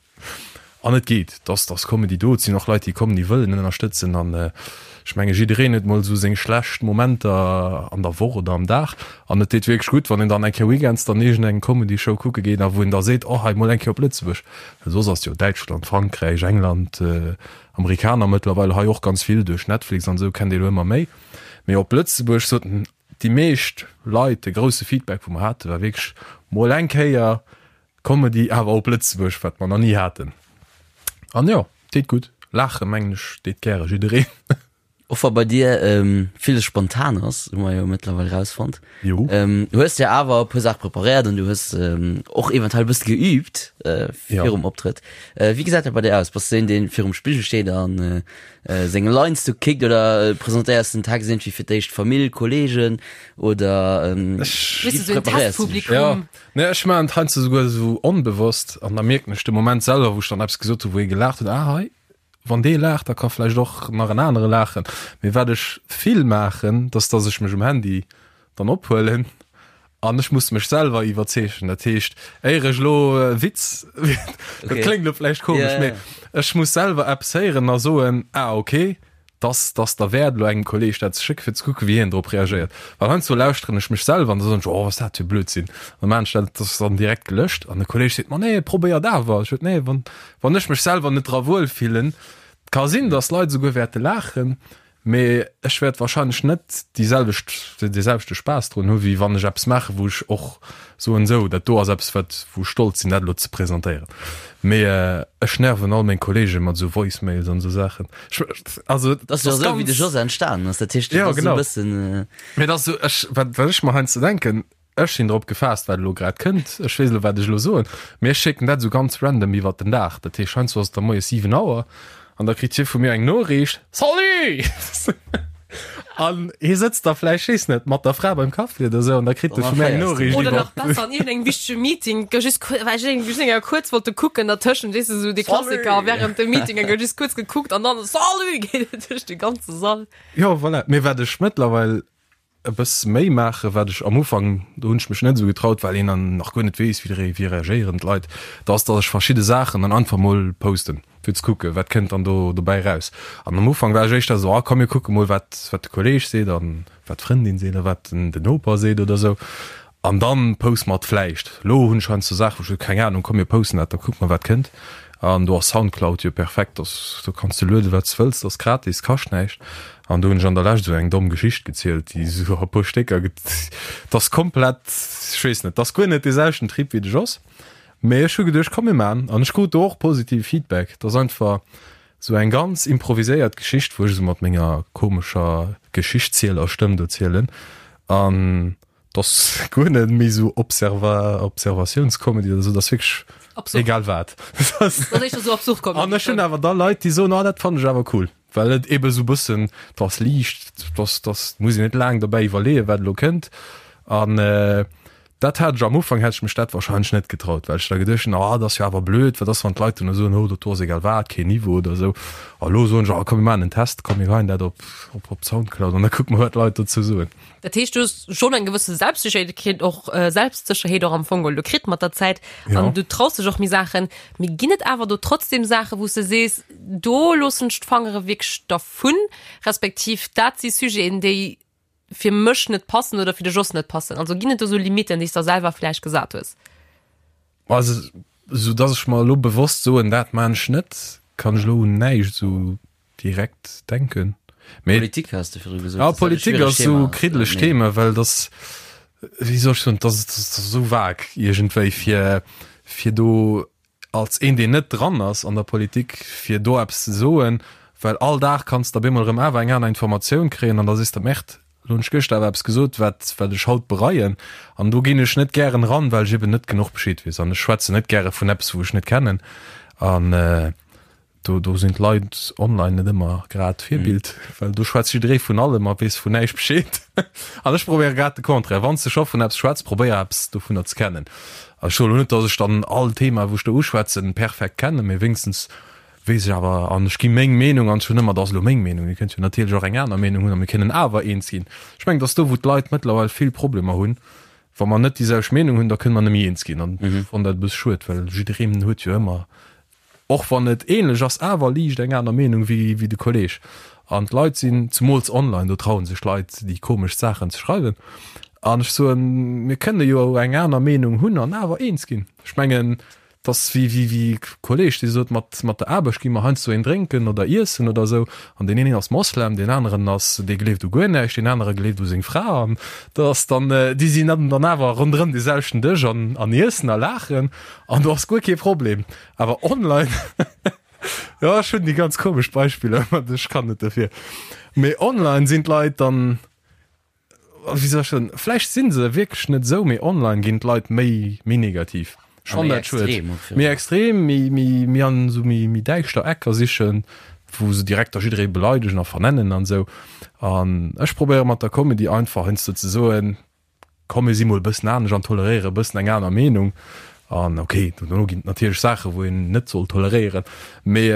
An et geet, dass dass Comedy do, et sinn och Leit déi kommen, déi wëllen ënnerstëtzen an ech menge jiddereen huet mol esou seng schlecht Momenter an der Woch oder am Dag an et deet wierklech gutt, wann een dann eng Kéier weekends dann iergend eng Comedy Show kucke geet a wou een da seet, oh hei mol eng Kéier op Lëtzebuerg, well soss ass jo Däitschland, Frankräich, England, Amerikaner mëttlerweil hei och ganz vill duerch Netflix an esou kennt ee lo ëmmer méi, mee op Lëtzebuerg soten Déi meescht Leit, de grousse Feedback wou mer haten, war wierklech mol eng Kéier Comedy awer op Lëtzebuerg, wat mer nach ni haten. An jo, deet gutt. Laache mengen ech deet gäre jiddereen. Och wa bei dir villes spontan ass, hu mer jo mëttlerweil rausfonnt. Jo. Hues de awer e puer Saache preparéiert an du hues och eventuell e bësse geüübt virum Optrëtt. Wéi gesäit dat bei dir aus? Bass du een, dee virum Spigel steet a seng Lines do kickt oder presentéiers den Text iergendwéi fir d'éischt Famill, Kolleegen oder wéi preparéiers du dech? Jo, nee, ech maachen et heiansdo souguer esou onbewosst an da mierken ech de Moment selwer, wou ech dann eppes gesot hu wou ee gelaacht huet, ah hei, Wann dee laacht, da ka vläicht och nach en anere laachen. Mee wat ech vill maachen, dat ass, dass ech mech um Handy dann ophuelen an ech muss mech selwer iwwerzeegen. Dat heescht, éier ech elo e Witz, dat kléngt elo vläicht komesch, mee ech muss selwer eppes héieren a soen, ah okay, dass dass derwäert elo engem Kolleeg dat ze schécken, fir ze kucken, wéi hien drop reagéiert. Well heiansdo lauschteren ech mech selwer an da soen ech, oh, wat ass dat fir Blödsinn. An da maachen ech dat, dat ass dann direkt gelöscht an de Kolleeg seet, ma nee, probéier et awer. Ech sot, nee, wann Wann ech mech selwer net dra wuel fillen, et ka sinn, dass Leit esouguer wäerte laachen, mee ech wäert wahrscheinlech net déi selwecht, dee selwechte Spaass drun hu wéi wann ech eppes maachen, wou ech och soen, sou, dat do ass eppes, wat, wou ech stolz sinn, dat elo ze presentéieren. Mee ech nerven all meng Kollege mat esou Voicemails an esou Saachen. Ech, also, Dat ass jo esou, wéi de Jos entstanen ass. Dat heescht, Jo, dat ass esou e genau. bëssen. Mee dat ass esou, ech, wat, wat ech mer heiansdo denken, Ech sinn drop gefaasst, wat elo grad kënnt. Ech weess elo, wat ech elo soen, mee ech schécken dat esou ganz random iwwert den Dag. Dat heescht, heiansdo ass et da moies 7 Auer an da kritt hie vu mir eng Noriicht, Salut! An hie sëtzt da vläicht, weess net, mat der Fra beim Kaffi oder esou an da kritt e vu mir eng Noriicht Oder nach iwwer. besser an iergendengem wichtege Meeting, gouf just kuer, well ech just eng Kéier kuerz wollte kucken dertëschent, weess de, esou dee Klassiker während dem Meeting, eng Kéier just kuerz gekuckt an dann Salut! geet et duerch de ganze Sall. Jo, voilà. Mee wat ech mëttlerweil e bësse méi maachen, wat ech am Ufank, do hunn ech mech net esou getraut, well een dann nach guer net weess, wéi wéi reagéieren d'Leit, da ass, datt ech verschidde Saachen dann einfach mol posten, fir ze kucken, wat kënnt dann do dobäi raus. An am Ufank war ech éischter esou, ah komm mir kucke mol, wat wat de Kolleeg seet an wat d'Frëndin seet a wat den den Noper seet oder esou. An dann poste mer et vläicht. Lo hunn ech heiansdo Saachen, wou ech soen, keng Ahnung, komm mir posten dat, da kucke mer wat kënnt. An do ass Soundcloud jo perfekt, dass do kanns de lueden wat s wëlls, dat ass gratis, kascht näischt. An do hunn ech an der Lescht esou eng domm Geschicht gezielt, déi esou a puer Stécker get, dat ass komplett, ech weess net, dat ass guer net dee selwechten Trip wéi de Jos. Mee ech hu geduecht, komm mir maan. An ech krut do och positive Feedback. Dat ass einfach esou eng ganz improviséiert Geschicht, wou ech esou mat menger komescher Geschichtszielersstëmm do zielen. An Dass guer net méi sou Observa Observatiounscomedy oder sou, dass wierklech Absurd. egal wat. Das ass éischter sou absurd Comedy. An ech hunn awer da Leit, déi soen, ah dat fannen ech awer cool, well et ebe sou bëssen, dass liicht, dass dass muss een net laang dobäi iwwerleeën, wat elo kënnt. An dat hat ech am Ufank hätt ech mech dat wahrscheinlech net getraut, well ech da geduecht hunn, ah dat ass jo awer blöd, wat ass wann d'Leit duerno soen, oh dat do ass egal wat, keen Niveau oder sou. A lo soen ech, ah komm mir maachen en Test, komm mir geheien dat op op op Soundcloud an da kucke mer wat d'Leit dozou soen. Dat heescht, du hues schonn eng gewësse Selbstsécherheet och Selbstsécherheet och am Fong geholl kritt mat der Zäit an du traus dech och méi Saachen. Mee ginn et awer do trotzdem Saachen, wou s de sees, do loossen ech d'Fangere wierklech dervun, respektiv dat si Sujeten, déi fir mech net passen oder fir de Jos net passen? Also ginn et do sou Limitten, déi s der selwer vläicht gesat hues? Also sou dass ech mer elo bewosst soen, dat maan ech net, kann ech elo un näischt sou direkt denken. Mee Politik has de virdru gesot. Ja, Politik ass sou kriddeleg Thema, well dass wéi soll ech soen, dass ass esou vag iergendwéi fir fir do als een deen net dran ass an der Politik fir do eppes ze soen, well all Dag kanns de op eemol erëm awer eng aner Informatioun kréien an da sees de, Merde, lo hunn ech gëschter awer eppes gesot wat wat ech haut bereien an do ginn ech net gären eran, well ech eben net genuch Bescheed weess an ech schwätzen net gäre vun eppes wou ech net kennen an Do, do sinn d'Leit online net ëmmer grad Virbild, mm. well do schwätzt jidderee vun allem a weess vun näischt Bescheed. An ech probéiere grad de Contraire. Wann s de scho vun eppes schwätz, probéier eppes dovunner ze kennen. A ech soen elo net, datt ech dann all Thema, wou ech do uschwätzen, perfekt kennen, mee wéinstens weess ech awer an ech gi meng Meenung an ech hunn ëmmer, dat ass elo meng Meenung, Dir kënnt jo natierlech och eng aner Meenung hunn a mir kënnen awer eens ginn. Ech mengen, datt do, wou d'Leit mëttlerweil vill Problemer hunn, wa mer net déi selwecht Meenung hunn, da kënne mer net méi eens ginn. An ech fannen dat e bësse schued, well jiddereen huet jo ëmmer Och wann et ähnlech ass, awer liicht eng aner Meenung wéi de Kolleg. An d'Leit sinn, zemools online, do trauen sech d'Leit déi komeschst Saachen ze schreiwen. An ech soen, mir kënne jo eng aner Meenung hunn an awer eens ginn. Ech mengen, et ass wéi wéi e Kolleg, dee sot, mat mat der Aarbecht gi mer heiansdo een drénken oder iessen oder esou. An deen een ass Moslem, deen aneren ass, dee gleeft u guer näischt, deen anere gleeft u seng Fra. An dat ass dann, déi sinn dann awer ronderëm dee selwechten Dësch an an iessen a laachen. An do ass guer kee Problem. Awer online. Jo, ech hunn déi ganz komesch Beispiller, mä ech kann net dofir. Mee online sinn d'Leit dann, wéi soll ech soen, vläicht si se wierklech net esou, mee online ginn d'Leit méi, méi negativ. Ech A fannen méi dat schued. extrem och Méi virun. extrem, méi, méi, méi an esou méi, méi däischter Ecker sichen, wou se direkt da jidderee beleidegen a vernennen an esou. An ech probéiere mat der Comedy einfach heiansdo ze soen, Komm mir si mol e bëssen anescht an toleréiere e bëssen eng aner Meenung. An ok, dono ginn et natierlech Saache wou een net soll toleréieren, mee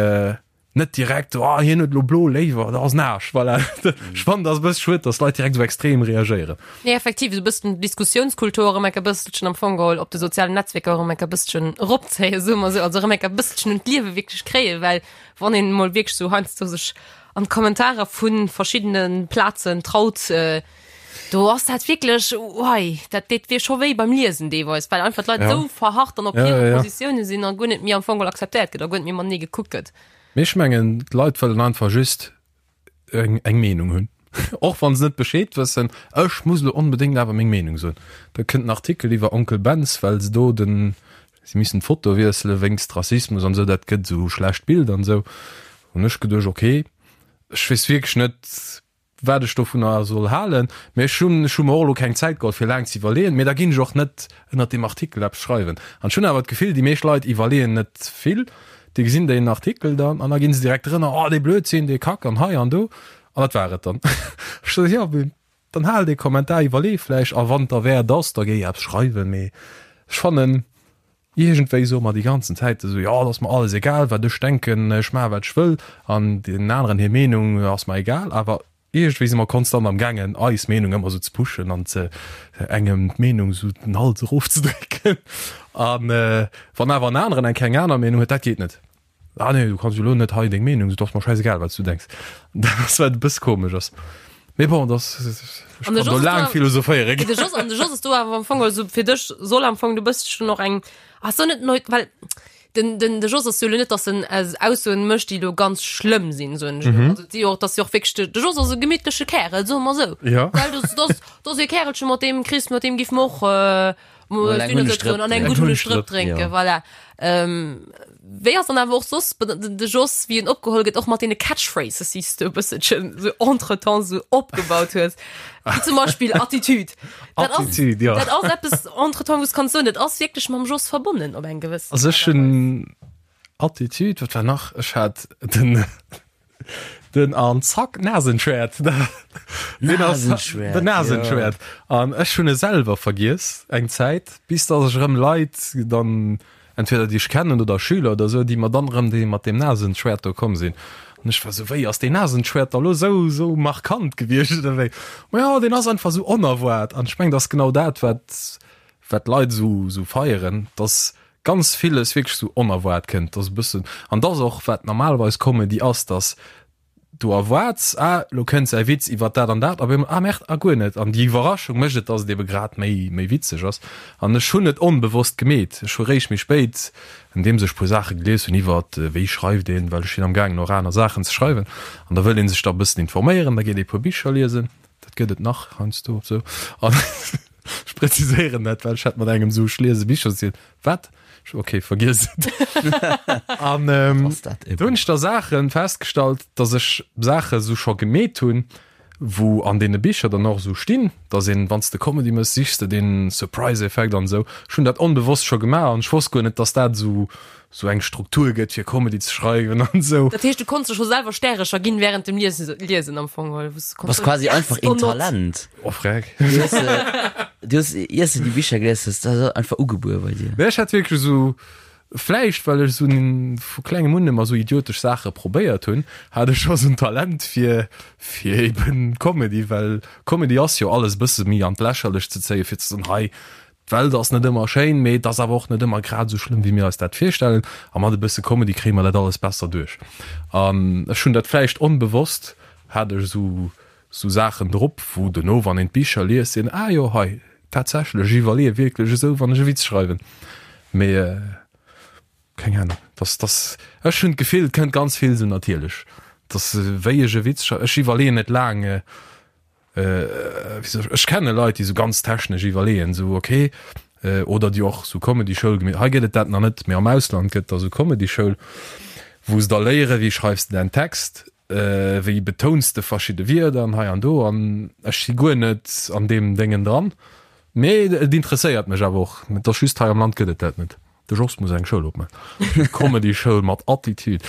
net direkt, oh hien huet elo blo léiwer, dat ass en Aarsch. Voilà. Ech fannen dat ass e bësse schued, datt Leit direkt esou extrem reagéieren. Nee, effektiv, esou e bëssen d'Diskussiounskultur erëm enk e bësselchen am Fong geholl op de sozialen Netzwierker erëm enk e bësselchen eropzéien, soe mer esou, also erëm enk e bësselchen un d'Liewe wierklech kréien, well wann een emol wierklech esou heiansdo sech an d'Kommentarer vu verschiddene Plazen traut, Do ass dat wierklech, wei, dat deet wier scho wéi beim Liesen deelweis, well einfach d'Leit Ja. esou verharrt dann op Ja, hire ja, ja. Positioune sinn a guer net méi am Fong geholl akzeptéiert gëtt a guer net méi matenee gekuckt gëtt. Mee ech mengen, d'Leit wëllen einfach just eng, eng Meenung hunn. Och wann se net Bescheed wëssen, ech muss elo onbedéngt awer meng Meenung soen. Da kënnt en Artikel iwwer Onkel Benz, well se do den, si missen d'Foto wiessele wéinst Rassismus an esou, dat gëtt esou schlecht Bild an esou. Hunn ech geduecht, okay, ech weess wierklech net, wat ech dovunner soll halen, mä ech hunn ech hu mer och elo keng Zäit geholl fir laang ze iwwerleeën, mä da ginn ech och net ënnert deem Artikel eppes schreiwen. An ech hunn awer d'Gefill, déi meescht Leit iwwerleeën net vill, déi gesinn deen Artikel dann an da ginn se direkt drënner, oh dee Blödsinn, dee Kack an hei an do an dat war et dann. Ech sot, jo, mee dann hal dee Kommentar, iwwerlee vläicht a wann et derwäert ass, da géi eppes schreiwen, mee ech fannen, Iergendwéi soe mer déi ganzen Zäit esou, jo, et ass mer alles egal, wat ech denken, ech maache wat ech wëll an deenen aneren hir Meenung ass mer egal. Awer iergendwéi si mer konstant am gaangen, eis Meenung ëmmer esou ze pushen an ze engem d'Meenung esou den Hals erofzedrécken. A wann awer en aneren eng keng aner Meenung huet, dat geet net. Ah nee, du kanns jo elo net hei deng Meenung, et ass mer schäisegal wat s du denks. Dat ass wat e bësse komesch ass. Mee bon, dat ass, ech An de kann do Jos laang ass do- philosophéiere De Jos, an de Jos ass do awer am Fong also fir dech soll am Fong du bësschen och eng ass so net neu well den den de Jos ass jo lo net dass en es Aussoen mécht déi lo ganz schlëmm sinn soen ech elo. Also déi och dass jo och wierklech de de Jos ass e gemittleche Kärel soe mer sou. Ja. Well dass dass dass e Kärelche mat deem kriss mat deem giff mer och äh, Mol eng Hunnestrëpp an eng gutt Hunnestrëpp drénken, ja. voilà. Ähm, wéi ass dann awer och soss de Jos, wéi en opgeholl gëtt, och mat deene Catchphrases, déi s du e bësselchen sou entretemps sou opgebaut hues, wéi zum Beispill Attitude. Dat ass, Attitude, ja. dat ass eppes entretemps, wou s kanns soen, dat ass wierklech mam Jos verbonnen op eng gewëssen Also ech Aart a Weis. hunn Attitude, wat war nach? Ech hat den Den an zack Nasenschwert Nasenschwert, Den Nasenschwert an ech hunn e selwer vergiess eng Zäit, bis datt ech erëm Leit dann entweder déi ech kennen oder Schüler oder sou, déi mer dann erëm déi mat deem Nasenschwert do komm sinn. An ech war sou, wéi ass deen Nasenschwert da lo sou sou markant gewiescht oder wéi? Ma jo, deen ass einfach sou onerwaart an ech mengen, dat ass genau dat wat wat d'Leit sou sou feieren, dass ganz villes wierklech sou onerwaart kënnt, dass e bëssen, an dass och wat normalerweis Comedy ass, dass du erwaarts, ah lo kënnt säi Witz iwwer dat an dat, a op eemol, ah merde, ah guer net. An déi Iwwerraschung mécht et, dass et ebe grad méi méi witzeg ass. An ech hunn et onbewosst gemeet. Ech hu réischt méi spéit, andeems ech puer Saache gelies hunn iwwer wéi schreift een, well ech sinn am gaangen och aner Saachen ze schreiwen, an da wëll ee sech da e bëssen informéieren, da geet ee puer Bicher liesen, dat gëtt et nach heiansdo sou, an Ech präziséieren dat, well ech hat mat engem sou, ech liese Bicher, si wat? Ech, okay, vergiess et. An ähm, Ass dat do hunn ech da Saachen festgestallt, dass ech Saache sou scho gemeet hunn, wou an deene Bicher dann och sou stinn, dass een, wann s de Comedy mëss, sichs de deen Surprise-Effekt an esou. Ech hunn dat onbewosst scho gemaach an ech wosst guer net, dass dat sou sou eng Struktur gëtt fir Comedy ze schreiwen an esou. Dat heescht, du konns der scho selwer Stärecher ginn während dem Liesen, Liesen am Fong, oder wou s du konns Bass soen, quasi yes einfach or een not. Talent. Oh freck. Du hues, du hues, iers de déi Bicher gelies hues, dat ass einfach ugebuer bei dir. Nee, ech hat wierklech esou, vläicht well ech esou vu klengem un ëmmer esou idiotesch Saache probéiert hunn, hat ech scho esou en Talent fir, fir eben Comedy, well Comedy ass jo alles e bësse méi an d'Lächerlecht ze zéien, fir ze soen, hei, D'Welt ass net ëmmer schéin, mee et ass awer och net ëmmer grad esou schlëmm, wéi mir eis dat virstellen. A mat e bësse Comedy kréie mer dat alles besser duerch. An ech hunn dat vläicht onbewosst, hat ech esou esou Saachen drop, wou dono, wann een d'Bicher liest, seet een, ah jo, hei, tatsächlech, ech iwwerleeë wierklech esou, wann ech e Witz schreiwen. Mee keng Ahnung, dass, dass, ech hunn d'Gefill, et kënnt ganz vill esou natierlech, dass wéi ech e Witz schreiwen, ech iwwerleeën net laang, Ech kenne Leit, déi sou ganz technesch iwwerleeën, sou ok, oder déi och sou Comedy-Schoul gemeet, hei gëtt et dat nach net, mee am Ausland gëtt da sou Comedy-Schoul, Wou se da léieren, wéi schreifs de däin Text, wéi betouns de verschidde Wierder an hei an do. An ech si guer net an deem Déngen dran. Mee et interesséiert mech awer och. Et ass just, hei am Land gëtt et dat net. De Jos muss eng Schoul opman. Comedy-Schoul mat Attitude.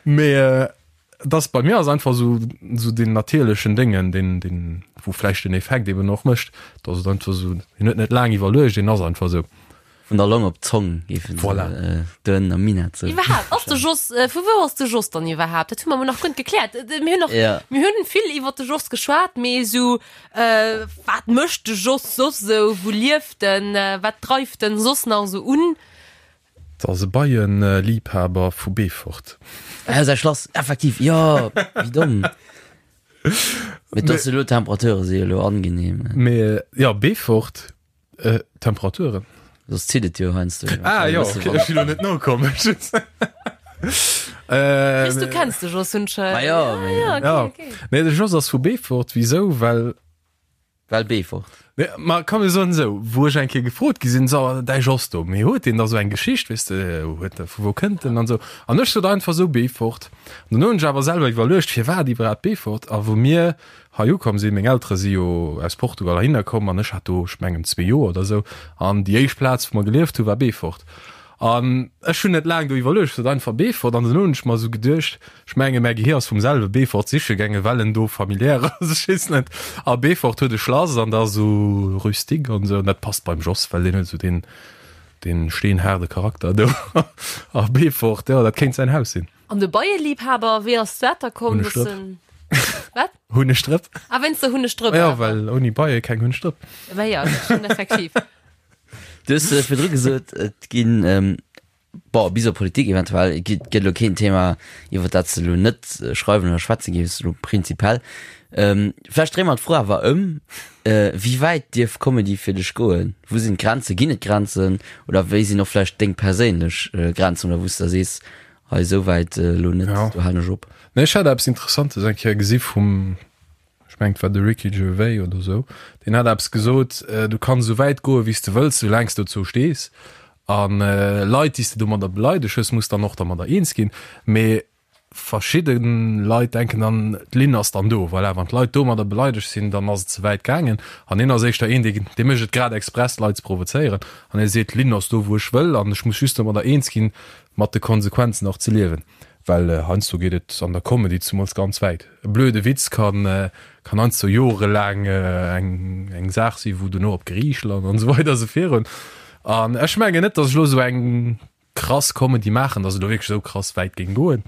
Mee et ass, bei mir ass einfach esou, esou deen natierlechen Déngen, deen, deen, wou vläicht den Effekt eben och mécht, dass et einfach esou, hien huet net laang iwwerluecht, deen ass einfach esou. Vun der Long op d'Zong géifen se Voilà. do ënnen am Minett soen. Iwwerhaapt, ass de Jos, vu wou ass de Jos dann iwwerhaapt? Dat hu mer emol nach guer net gekläert. Mir hunn nach, Ja. mir hunn vill iwwer de Jos geschwat, mee esou, wat mécht de Jos soss esou, wou lieft en, wat dreift en soss nach esou un? Dat ass e Beienliibhaber vu Beefort. Ah, säi Schlass, effektiv, jo, wéi domm. Mee et ass elo, d'Temperature si elo angenehm. Mee jo, Beefort, Temperaturen. Soss zitt et jo heiansdo. Ah jo, okay, ech si lo net nokomm. Chris, du kenns de Jos, hunn ech. Ma jo, mee. Ah, ja, okay, okay. Nee, de Jos ass vu Beefort. Wisou? Well. Well Beefort. Nee, ma komm mir soen esou, wou ech eng Kéier gefrot gi sinn, so, däi Jos do, mee huet deen da sou eng Geschicht, weess de, huet e, vu wou kënnt en an esou. An ech sot einfach esou, Beefort. An dunn hunn ech awer selwer iwwerluecht, firwat iwwerhaapt Beefort? A wou mir hei ukomm sinn, meng Eltere si jo aus Portugal heihinner komm an ech hat do, ech mengen, zwee Joer oder esou, an déi éischt Plaz, wou mer gelieft hunn, war Beefort. An ech hunn net laang do iwwerluecht, ech sot einfach Beefort an dunn hunn ech mer esou geduecht, ech menge mäi Gehier ass vum selwe Beefort siche gaangen, well en do familiär ass, ech weess net. A Beefort huet e Schlass an da esou rustique an esou an dat passt beim Jos, well deen huet esou deen, deen steenhaarde Charakter do. A Beefort, jo, dat kéint säin Haus sinn. An de Beieliebhaber, wéi ass dat da komm? Hunnegdrëpp. Wat? Hunnegdrëpp. Ah, wéinst der Hunnegdrëpp. Ja, well ouni Beie keng Hunnegdrëpp. Bah ja, dat stimmt effektiv. Du hues virdru gesot, et ginn, bon, bis op Politik eventuell, et gëtt elo keen Thema, iwwer dat s de elo net schreiwen oder schwätze géifs, elo prinzipiell. Vläicht dréie mer d'Fro awer ëm, Wéi wäit dierf Comedy fir dech goen? Wou sinn d'Grenzen? Ginn et Grenzen? Oder wéi sinn och vläicht deng perséinlech Grenzen oder wou s de da sees, hei esou wäit elo net, do halen ech op? Nee, ech hat eppes Interessantes eng Kéier gesi vum, ech mengen et war de Ricky Gervais oder esou, deen hat eppes gesot, du kanns esou wäit goe wéi s de wëlls, soulaang s dozou stees. A Leit, déi s de domadder beleideg hues, muss dann och dermadder eens ginn. Mee verschidde Leit denken dann, d'Linn ass dann do, voilà, wann d'Leit domadder beleidegt sinn, dann ass et ze wäit gaangen. An hien ass éischter een, dee dee mécht et grad express, d'Leit ze provozéieren. An hie seet, d'Linn ass do, wou ech wëll, an ech muss just domadder eens ginn, mat de Konsequenzen och ze liewen. Well heiansdo geet et an der Comedy zemools ganz wäit. E blöde Witz kann kann heiansdo jorelaang eng eng Saach sinn, wou duerno op Geriicht lant an esou weider esou virun. An ech mengen net, datt ech elo esou eng krass Comedy maachen, datt et elo wierklech esou krass wäit géing goen.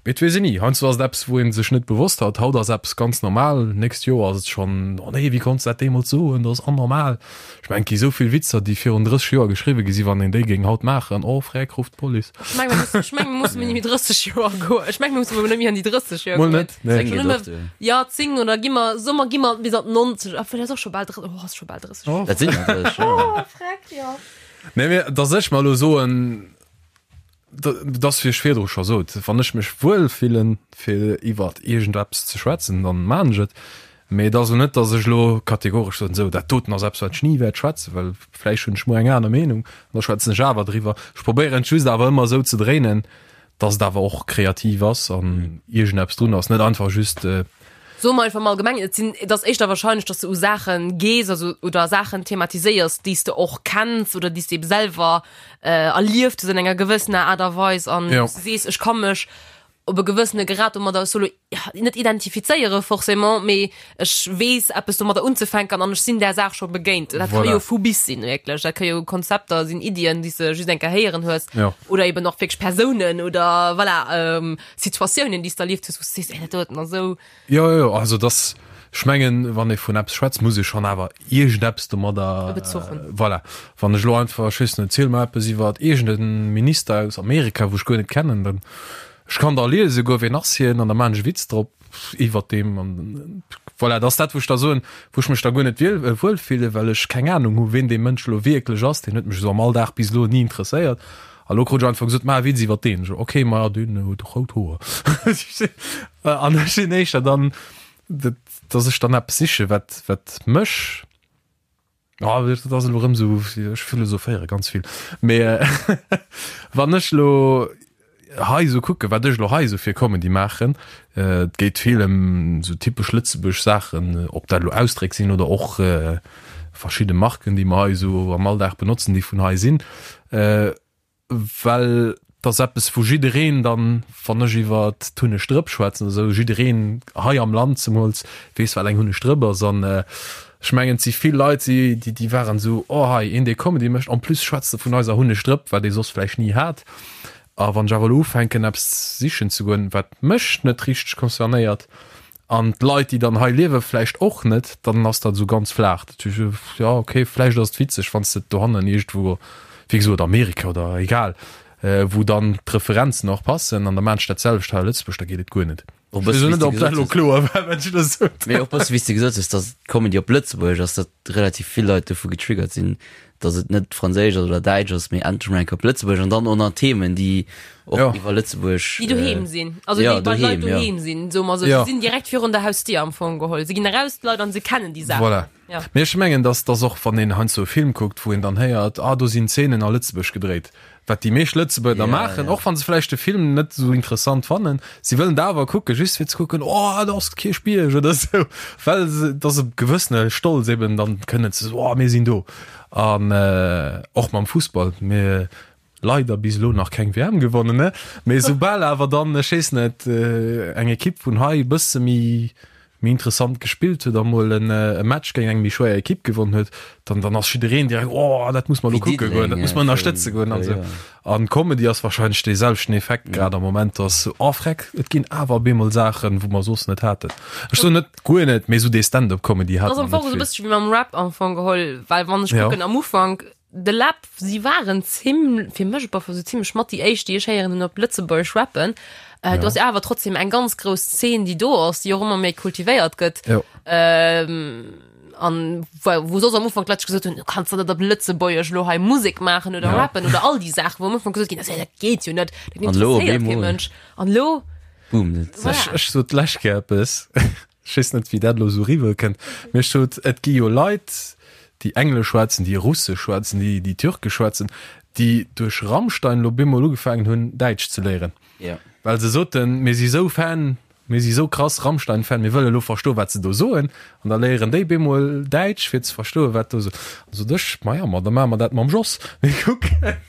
Mee et weess een ni. Heiansdo ass et eppes, wou ee sech net bewosst hat. Haut ass eppes ganz normal, nächst Joer ass et schonn, oh nee, wéi konns de dat deemools soen, dat ass anormal. Ech mengen, et gi esou vill Witzer, déi virun 30 Joer geschriwwe gi sinn, wann een déi géing haut maachen, oh freck, rufft d'Police. Ech mengen, mir mussen, ech mengen, mir mussen net méi 30 Joer goen. Ech mengen, mir mussen net méi an déi 30 Joer Mol goen. net, nee. Zéng geet och duer. Ja, 10 oder gi mer, soe mer, gi mer bis an d'90. Obwuel, dat ass och scho bal, oh, ass scho bal 30 Joer. Dat sinn der 30, jo. Oh, freck, jo. Nee, mee dass ech mer elo soen, dass, wéi ech virdru scho sot, wann ech mech wuel fillen, fir iwwert iergendeppes ze schwätzen, dann maan ech et. Mee et ass elo net, dass ech elo kategoresch soen, esou, dat doten ass eppes, wat ech ni wäert schwätzen, well vläicht hunn ech muer eng aner Meenung an da schwätzen ech awer driwwer. Ech probéieren et just awer ëmmer esou ze dréinen, dass et awer och kreativ ass an iergendeppes drun ass, net einfach just. Soe mer einfach mol allgemeng, et sinn, et ass éischter wahrscheinlech, dass de u Saache gees, also oder Saachen thematiséiers, déi s de och kenns oder déi s de ebe selwer erlieft hues an enger gewëssener Aart a Weis an Jo. wou s de sees, ech ka mech op e gewëssene Grad domadder solo net identifizéiere forcément, mee ech weess eppes domadder unzefänken an ech sinn där Saach scho begéint. Dat ka Voilà. jo vu bis sinn, wierklech. Dat ka jo Konzepter sinn, Iddien, déi s de just eng Kéier héieren hues Jo. oder eben och wierklech Persounen oder voilà, Situatiounen, déi s de erlieft hues, wou s de sees, ey, dat doten ass esou. Jo, jo, also dass, ech mengen, wann ee vun eppes schwätzt, muss ee schonn awer iergendeppes domadder. E Bezuch hunn. Voilà. Wann ech elo einfach, ech weess net, ziel mer eppes iwwer iergend e Minister aus Amerika, wou ech guer net kennen, dann, ech kann da liese goen, wien ass hien, an da maachen ech e Witz drop iwwert deem an voilà, dat ass dat, wou ech da soen, wou ech mech da guer net wiel, wuel fillen, well ech keng Anung hu wien dee Mënsch elo wierklech ass. Deen huet mech esou am Alldag bis elo ni interesséiert. A lo krut ech einfach gesot, maach e Witz iwwer deen. Ech so, okay, ma deen huet rout Hoer. An ech sinn éischter dann, dass ech dann eppes siche wat, wat mech, oh, dat ass elo erëm esou, ech philosophéiere ganz vill, mee wann ech elo. hei esou kucken, wat ech elo hei esou fir Comedy maachen, et geet vill ëm esou typesch lëtzebuergesch Saachen, ob dat elo Ausdréck sinn oder och verschidde Marken, déi mer hei esou am Alldag benotzen, déi vun hei sinn, well et ass eppes, wou jiddereen dann, wann ech iwwer d'Hunneg-Drëpp schwätzen oder esou, jiddereen hei am Land zemools weess, wat eng Hunneg-Drëpp ass. An ech mengen, et si vill Leit, déi, déi waren esou, oh hei, een, dee Comedy mécht, en plus schwätzt e vun eiser Hunneg-Drëpp, wat ee soss vläicht ni hat. A wann ech awer elo ufänken, eppes sichen ze goen, wat mech net richteg concernéiert an d'Leit, déi dann hei liewen, vläicht och net, dann ass dat esou ganz flaach. Dat heescht, jo, okay, vläicht ass et witzeg, wann s de et dohannen iergendwou, wéi gesot, Amerika oder egal, wou dann d'Referenzen och passen, an da maan ech dat selwecht hei a Lëtzebuerg, da geet et guer net. Och Ech weess bësse elo net, wéi s de ob dat gesot elo hues. kloer war, wat ech elo sot. Mee och bësse wéi s de gesot hues, datt Comedy op Lëtzebuergesch ass, datt relativ vill Leit dovu getriggert sinn, datt et net Franséisch ass oder Däitsch ass, mee endlech mol eng Kéier op Lëtzebuergesch an dann och nach Themen, déi och Ja. iwwer Lëtzebuerg. Déi doheem sinn, also ja, déi bei Leit doheem, ja. doheem sinn, soe mer esou. Ja. Se sinn direkt virun der Hausdier am Fong geholl. Se ginn eraus, d'Leit, an se kennen déi Saachen. Voilà. Ja. Mee ech mengen, dass dass och wann een heiansdo e Film kuckt, wou een dann héiert, ah do sinn Zeenen a Lëtzebuerg gedréit, wat déi meescht Lëtzebuerger da Ja, maachen, ja. och wa se vläicht de Film net esou interessant fannen, si wëllen et awer kucken, just fir ze kucken, oh do ass d'Kierchbierg oder esou, well se, et ass e gewëssene Stolz eben dann kënnen ze soen, oh mir sinn do. An och mam Fussball, mir leider bis elo nach keng WM gewonnen, ne, mee soubal awer dann, ech weess net, eng Ekipp vun hei e bësse méi méi interessant gespillt huet a mol en e Match géint eng méi schwéier Ekipp gewonnen huet, dann dann ass jiddereen direkt, oh dat muss mer elo Wéi kucke goen, dat Diddeleng muss mer ënnerstëtze virun goen an e puer esou. Joer. An Comedy ass wahrscheinlech dee selwechten Effekt grad am Moment, dass oh freck, et ginn awer op eemol Saachen, wou mer soss net haten. Ech soen net guer net, mee esou dee Stand-up-Comedy Dat hate ass am mer Fong net esou e vill. bëssche wéi mam Rap am Fong geholl, well wann ech Ja. kucken am Ufank, De Läb, si waren zim, fir mech op alle Fall sou zimlech mat déi éischt, déi ech héieren hunn op Lëtzebuergesch rappen. Äh, do ass jo awer trotzdem eng ganz grouss Zeen, déi do ass, déi och ëmmer méi kultivéiert gëtt. Jo. Ähm, an wou, wou soss am Ufank d'Leit gesot hunn, du kanns der net op Lëtzebuergesch lo hei Musek maachen oder Ja. rappen oder all déi Saachen, wou am Ufank gesot ginn ass, ja, dat geet jo net, dat An lo op interesséiert kee eemol. Mënsch. An lo, Boom, dat Voilà. Ech, ech sot d'lescht Kéier eppes. Ech weess net, wéi dat elo esou eriwwer kënnt, mee ech sot, et gi jo Leit, déi Englesch schwätzen, déi Russesch schwätzen, déi, déi Türkesch schwätzen, déi duerch Rammstein elo bemol ugefaangen hunn, Däitsch ze léieren. Well se soten, mir si sou Fan, mir si sou krass Rammstein-Fan, mir wëlle lo verstoen, wat se do soen. An da léieren déi bemol Däitsch, fir ze verstoen, wat do. An sot ech, maja, ma da maache mer dat mam Jos. Mir kucken.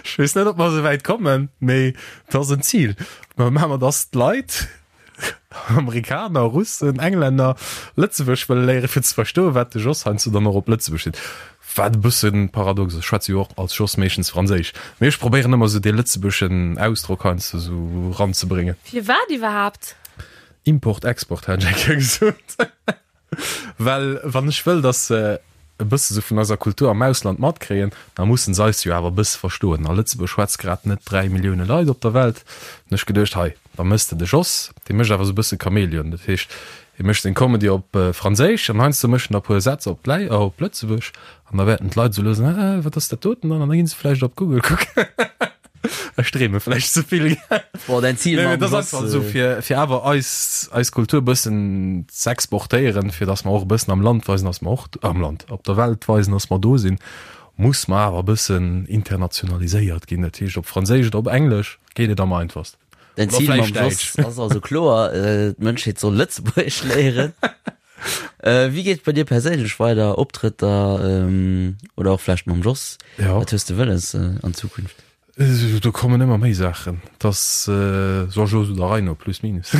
Ech weess net, ob mer esou wäit kommen, mee et ass en Zil. Mä maache mer, dass d'Leit, Amerikaner, Russen, Englänner, Lëtzebuergesch wëlle léieren, fir ze verstoen, wat de Jos heiansdo dann och op Lëtzebuergesch seet. Wat e bësse paradox ass, ech schwätze jo och als Jos meeschtens Franséisch, mee ech probéieren ëmmer esou dee lëtzebuergeschen Ausdrock heiansdo esou eranzebréngen. Firwat iwwerhaapt? Import, Export hat ech eng Kéier gesot. Well wann ech wëll, dass se e bësse sou vun eiser Kultur am Ausland matkréien, da mussen se eis jo awer e bësse verstoen. A Lëtzebuerg schwätzt grad net 3 Millioune Leit op der Welt. Hunn ech geduecht, hei, da méchs de de Jos, dee mécht awer sou e bësse Chamäleon. Dat heescht, hie mécht seng Comedy op Franséisch an heiansdo mécht en da e puer Sätz op Läi, op Lëtzebuerg an da wäerten d'Leit sou lues, ah, wat ass dat doten dann? An da ginn se vläicht op Google kucken. Ech dreeme vläicht ze vill. Boah, dein Ziel Nee, mam dat ass Jos, einfach esou äh, fir, fir awer eis, eis Kultur e bëssen z'exportéieren, fir datt mer och e bëssen am Land weisen, datt mer och am Land, op der Welt weisen, datt mer do sinn, muss mer awer e bëssen internationaliséiert ginn. Dat heescht op Franséisch oder op Englesch geet et am einfachsten. Dein Oder Ziel mam vläicht Jos Däitsch. ass also kloer, äh, d'Mënschheet soll Lëtzebuergesch léieren. Äh, wéi geet et bei dir perséinlech weider? Optrëtter, ähm, oder och vläicht mam Jos? Ja. Wat hues de wëlles äh, an Zukunft? Äh, Do kommen ëmmer méi Saachen. Dass äh, so Jos oder Reino plus minus.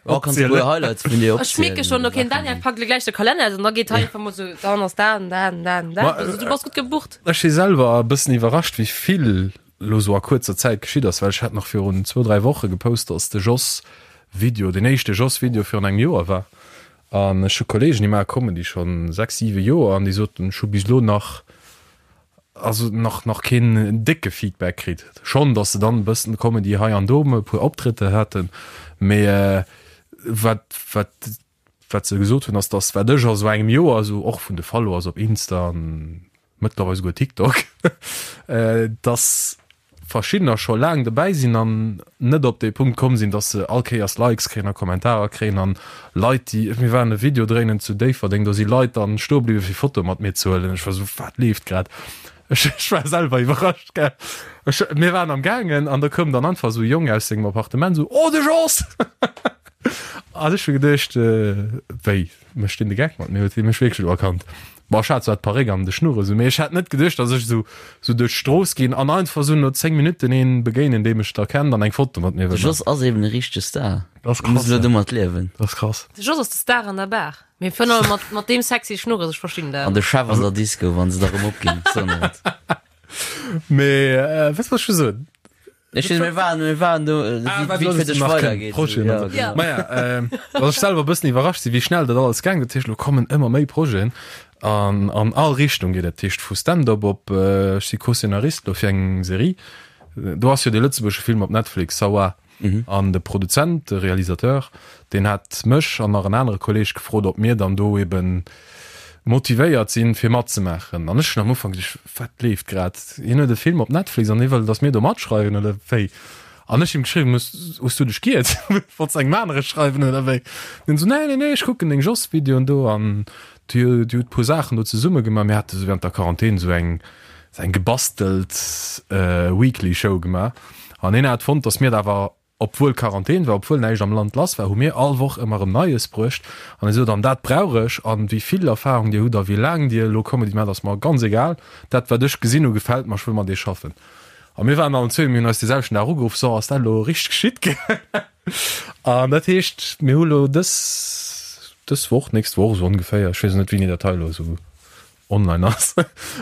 Oh, kannst du puer Highlights vun dir Ech mierke schon, okay, den Daniel packt lo gläich de Kalenner aus an da geet hei einfach mol sou, dann ass dat an dat an dat an dat. Ma, Also du bass gutt gebucht. Ech si selwer e bëssen iwwerrascht, wéi vill lo sou a kuerzer Zäit geschitt ass, well ech hat nach virun zwou, dräi Woche gepost, dass de Jos Video, deen éischte Jos Video virun engem Joer war. An ech hu Kollegen, déi maache Comedy schonn sechs, siwe Joer an déi soten, ech hu bis elo nach, also nach, nach keen décke Feedback kritt. Schonn, dass se dann e bëssen Comedy hei an do, e puer Optrëtter haten, mee wat, wat, wat se gesot hunn, ass, dass wat ech a sou engem Joer, esou och vun de Followers op Insta an mëttlerweil souguer TikTok, dass verschiddener scho laang dobäi sinn an net op dee Punkt komm sinn, dass se all Kéiers Likes kréien a Kommentarer kréien an Leit, déi, mir waren e Video dréinen zu Déifferdeng, do si Leit dann stoe bliwwe fir Fotoe mat mir ze huelen. Ech war esou, wat leeft grad? Ech, ech war selwer iwwerrascht, gell. Ech, mir waren am gaangen an da koum dann einfach esou e Jong aus sengem Appartement esou, Oh, de Jos! An ech hu geduecht, Wéi, mécht deen de Geck mat mir? Huet hie mech wierklech elo erkannt? Bon, ech hat zwar d'Paréck an de Schnurres u, mee ech hat net geduecht, datt ech esou, esou duerch d'Strooss ginn an einfach esou no 10 Minutten een begéinen, dee mech da kennt an eng Foto mat mir De wëll maachen. Jos ass eben e richtege Star. Dat ass Muss krass, elo ja. domat liewen. Dat ass krass. De Jos ass de Star an der Bar. Mee virun allem mat, mat deem sexy Schnurres, ech verstinn dat. An de Chef an der Disco, wann se da rëm opginn. So net. Mee, äh, wat wollt ech scho soen? Ech weess, mir waren, mir waren do, äh, Ah, wéi, wat wéi et soll fir dech nach kënnen? weidergeet. Projeten Ja, an sou. genau. Maja, äh, dass ech selwer e bëssen iwwerrascht sinn, wéi schnell dat alles gaang. Dat heescht, elo kommen ëmmer méi Projeten an an all Richtung geet. Dat heescht vu Stand-up op, äh, ech si Co-Szenarist elo fir eng Serie. Do ass jo dee lëtzebuergesche Film op Netflix, Sawa. An de Produzent, de Realisateur, deen hat mech an nach en anere Kolleeg gefrot, ob mir dann do eben motivéiert sinn, fir matzemaachen. An ech hunn am Ufank geduecht, wat leeft grad? Hien huet e Film op Netflix an hie wëll, datt mir do matschreiwen oder wéi? An ech him geschriwwen, hues, hues du dech giert? Wollts engem anere schreiwen oder wéi? An hien esou, nee, nee, nee, ech kucken deng Jos-Videoen do an Dir hutt puer Saachen do zesumme gemaach. Mir hate sou während der Quarantän sou eng eng gebastelt Weekly Show gemaach an hien hat fonnt, datt mir dat awer, obwuel Quarantän war, obwuel näischt am Land lass war, hu mir all Woch ëmmer erëm Neies bruecht an hie sot, an dat brauch ech an wéi vill Erfahrung Dir hutt a wéi laang Dir elo Comedy maacht, ass mer ganz egal, dat wat ech gesinn hu gefält mer, ech wëll mat Iech schaffen. A mir waren allen zwee, mir hunn eis dee selwechten Dag ugeruff, so ass dat elo richteg geschitt? An dat heescht, mir hu lo dës, dës Woch, nächst Woch esou ongeféier, ech weess net, wéini dat hei elo esou online ass,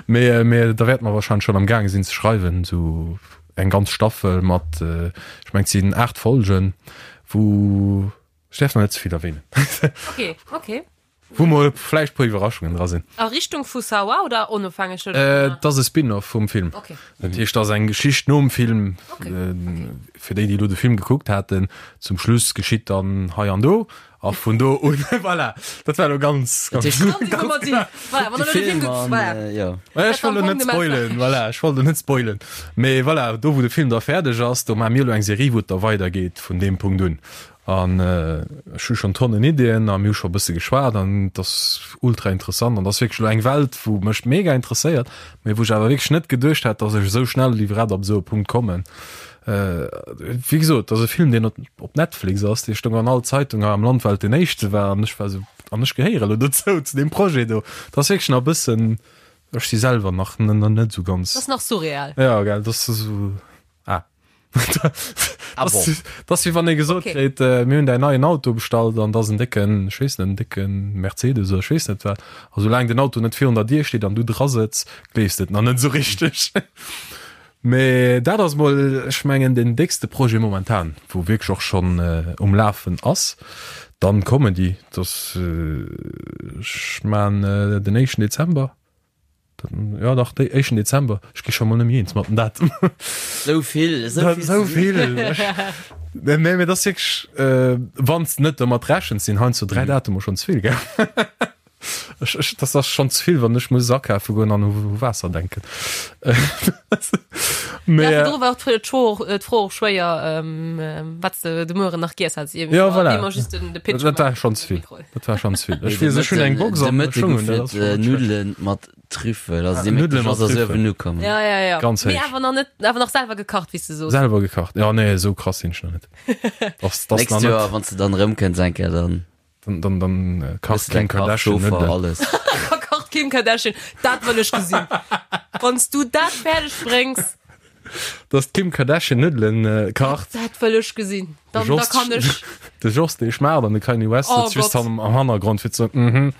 mee, mee da wäerte mer wahrscheinlech schonn am gaange sinn ze schreiwen, esou eng ganz Staffel mat, ech mengen et sinn 8 Folgen, wou, ech däerf nach net ze vill erwähnen. Okay, okay. Wou mol vläicht puer Iwwerraschungen dra sinn. A Richtung vu Sawa oder onofhängeg dovunner? Äh, dat ass e Spin-off vum Film. Okay. Dat heescht, dat ass eng Geschicht nom Film. Okay. Äh, fir déi, déi elo de Film gekuckt haten, zum Schluss geschitt dann hei an do. A vun do un, voilà, dat war elo ganz, Dat ganz. heescht, Ganz informativ. Voilà, wann de der elo de Film Film gekuckt, an, voilà. äh, jo. Ech Dat war wollt elo am net Fong de spoilen, Message. voilà, ech wollt elo net spoilen. Mee voilà, do wou de Film da fäerdeg ass, do maache mir elo eng Serie, wou et da weidergeet vun deem Punkt un. An ech hu schonn Tonnen Iddien a mir hu scho e bësse geschwat an et ass ultra interessant an et ass wierklech elo eng Welt, wou mech mega interesséiert, mee wou ech awer wierklech net geduecht hätt, datt ech esou schnell iwwerhaapt op esou e Punkt kommen. Wéi gesot, et ass e Film, deen op Netflix ass, dee stoung an all Zeitung hei am Land, well et deen éischte war an ech war esou, an ech gehéiere elo dozou, zu deem Projet do. Et ass wierklech nach e bëssen, ech si selwer nach net esou ganz. Et ass nach surreal. Jo, gell, et ass esou, ah. Ah bon. Das wie wann ee gesot Okay. kritt, äh, mir hunn däin neien Auto bestallt an das en décken, ech weess net, en décken Mercedes oder ech weess net wat. A soulaang den Auto net virun der Dier steet an du dra sëtz, gleefs de et nach net esou richteg. Mee dat ass mol, ech mengen, den déckste Projet momentan, wou wierklech och schonn äh, um Lafen ass. Dann Comedy, das, äh, ech man äh, den éischten Dezember. Ja dach, dé éischten Dezember. Ech gi scho mol net méi eens mat den Datum. Sou vill, esou vill. Esou vill. Nee, mee dat ass wierklech, äh, wann s de net domat rechens, sinn heiansdo 3 Datumer schonn ze vill, gell? Ech, ech, dat ass schonn ze vill, wann ech muss akafe goen an u Waasser denken. Mee, Ja, virdru war d'Fro och, d'Fro och schwéier, wat s de de Mueren nach giess häss. Ja, voilà. Immer just den, de Pitch Dat war gemaach. schonn ze vill. Dat war schonn ze vill. Ech De weess, ech hunn eng Box De an Mëtte ech hunn, gouf dat et ass schonn net schlecht. Nuddelen mat Trüffel. Also dee Nuddele Métteg mat ass ass Trüffel. uewen ukommen. Ja, ja, ja. Ganz Mee héich. awer nach net, awer nach selwer gekacht, wéi s de soos. Selwer gekacht. Ja, nee, esou krass sinn ech nach net. Das, das Nächst nach Joer, net. wann s de dann erëmkënns eng Kéier, dann Dann, dann, dann äh, hues kacht de dein Kim Kach, Kardashian Chauffer, Nuddelen. alles. Da kacht Kim Kardashian. Dat wëll ech gesinn. Wann s du dat fäerdeg bréngs, Dass d'Kim Kardashian Nuddelen äh, kacht. dat wëll ech gesinn. Dann, De da Jos- kann ech. De Jos, dee schmaacht an de Kanye West Oh sëtzt just Gott. am, am Hannergrond fir ze mhm.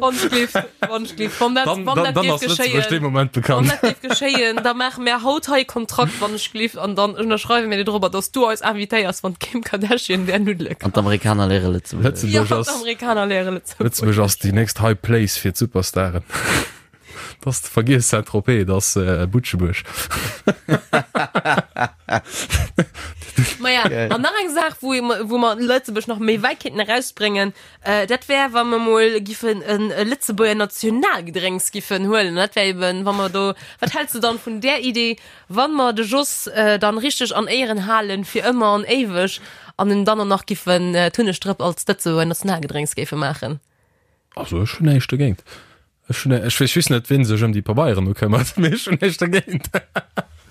Wonschglift, Wonschglift. Wann dat, Dann, wann dann, dat dann géif ass Lëtzebuerg dee geschéien, Moment wann bekannt. dat géif geschéien, da maache mir haut hei e Kontrakt, Wonschglift, an dann ënnerschreiwe mir dir dorobber, dass du eis invitéiers, wann d'Kim Kardashian där Nuddele An kacht. d'Amerikaner léiere Lëtzebuergesch. Lëtzebuerg Ja, ass, d'Amerikaner léiere Lëtzebuergesch. Lëtzebuerg ass déi nächst High Place fir d'Superstaren. Dass de vergiess Saint-Tropez, dat ass äh, Butschebuerg. Maja, an nach eng Saach, wou, wou mer Lëtzebuerg nach méi wäit kéinten erausbréngen, äh, dat wär, wa mer mol giffen en e Lëtzebuerger Nationalgedrénks giffen huelen. Dat wär eben, wa mer do, wat häls de dann vun där Idee, wann mer de Jos äh, dann richteg an Éieren halen fir ëmmer an éiweg an en dann och nach giffen äh, d'Hunnegdrëpp als Lëtzebuerger Nationalgedrénks géife maachen? Also ech hunn näischt dogéint. Ech hunn, ech weess just net, wien sech ëm déi Pabeieren do këmmert, mee ech hunn näischt dergéint.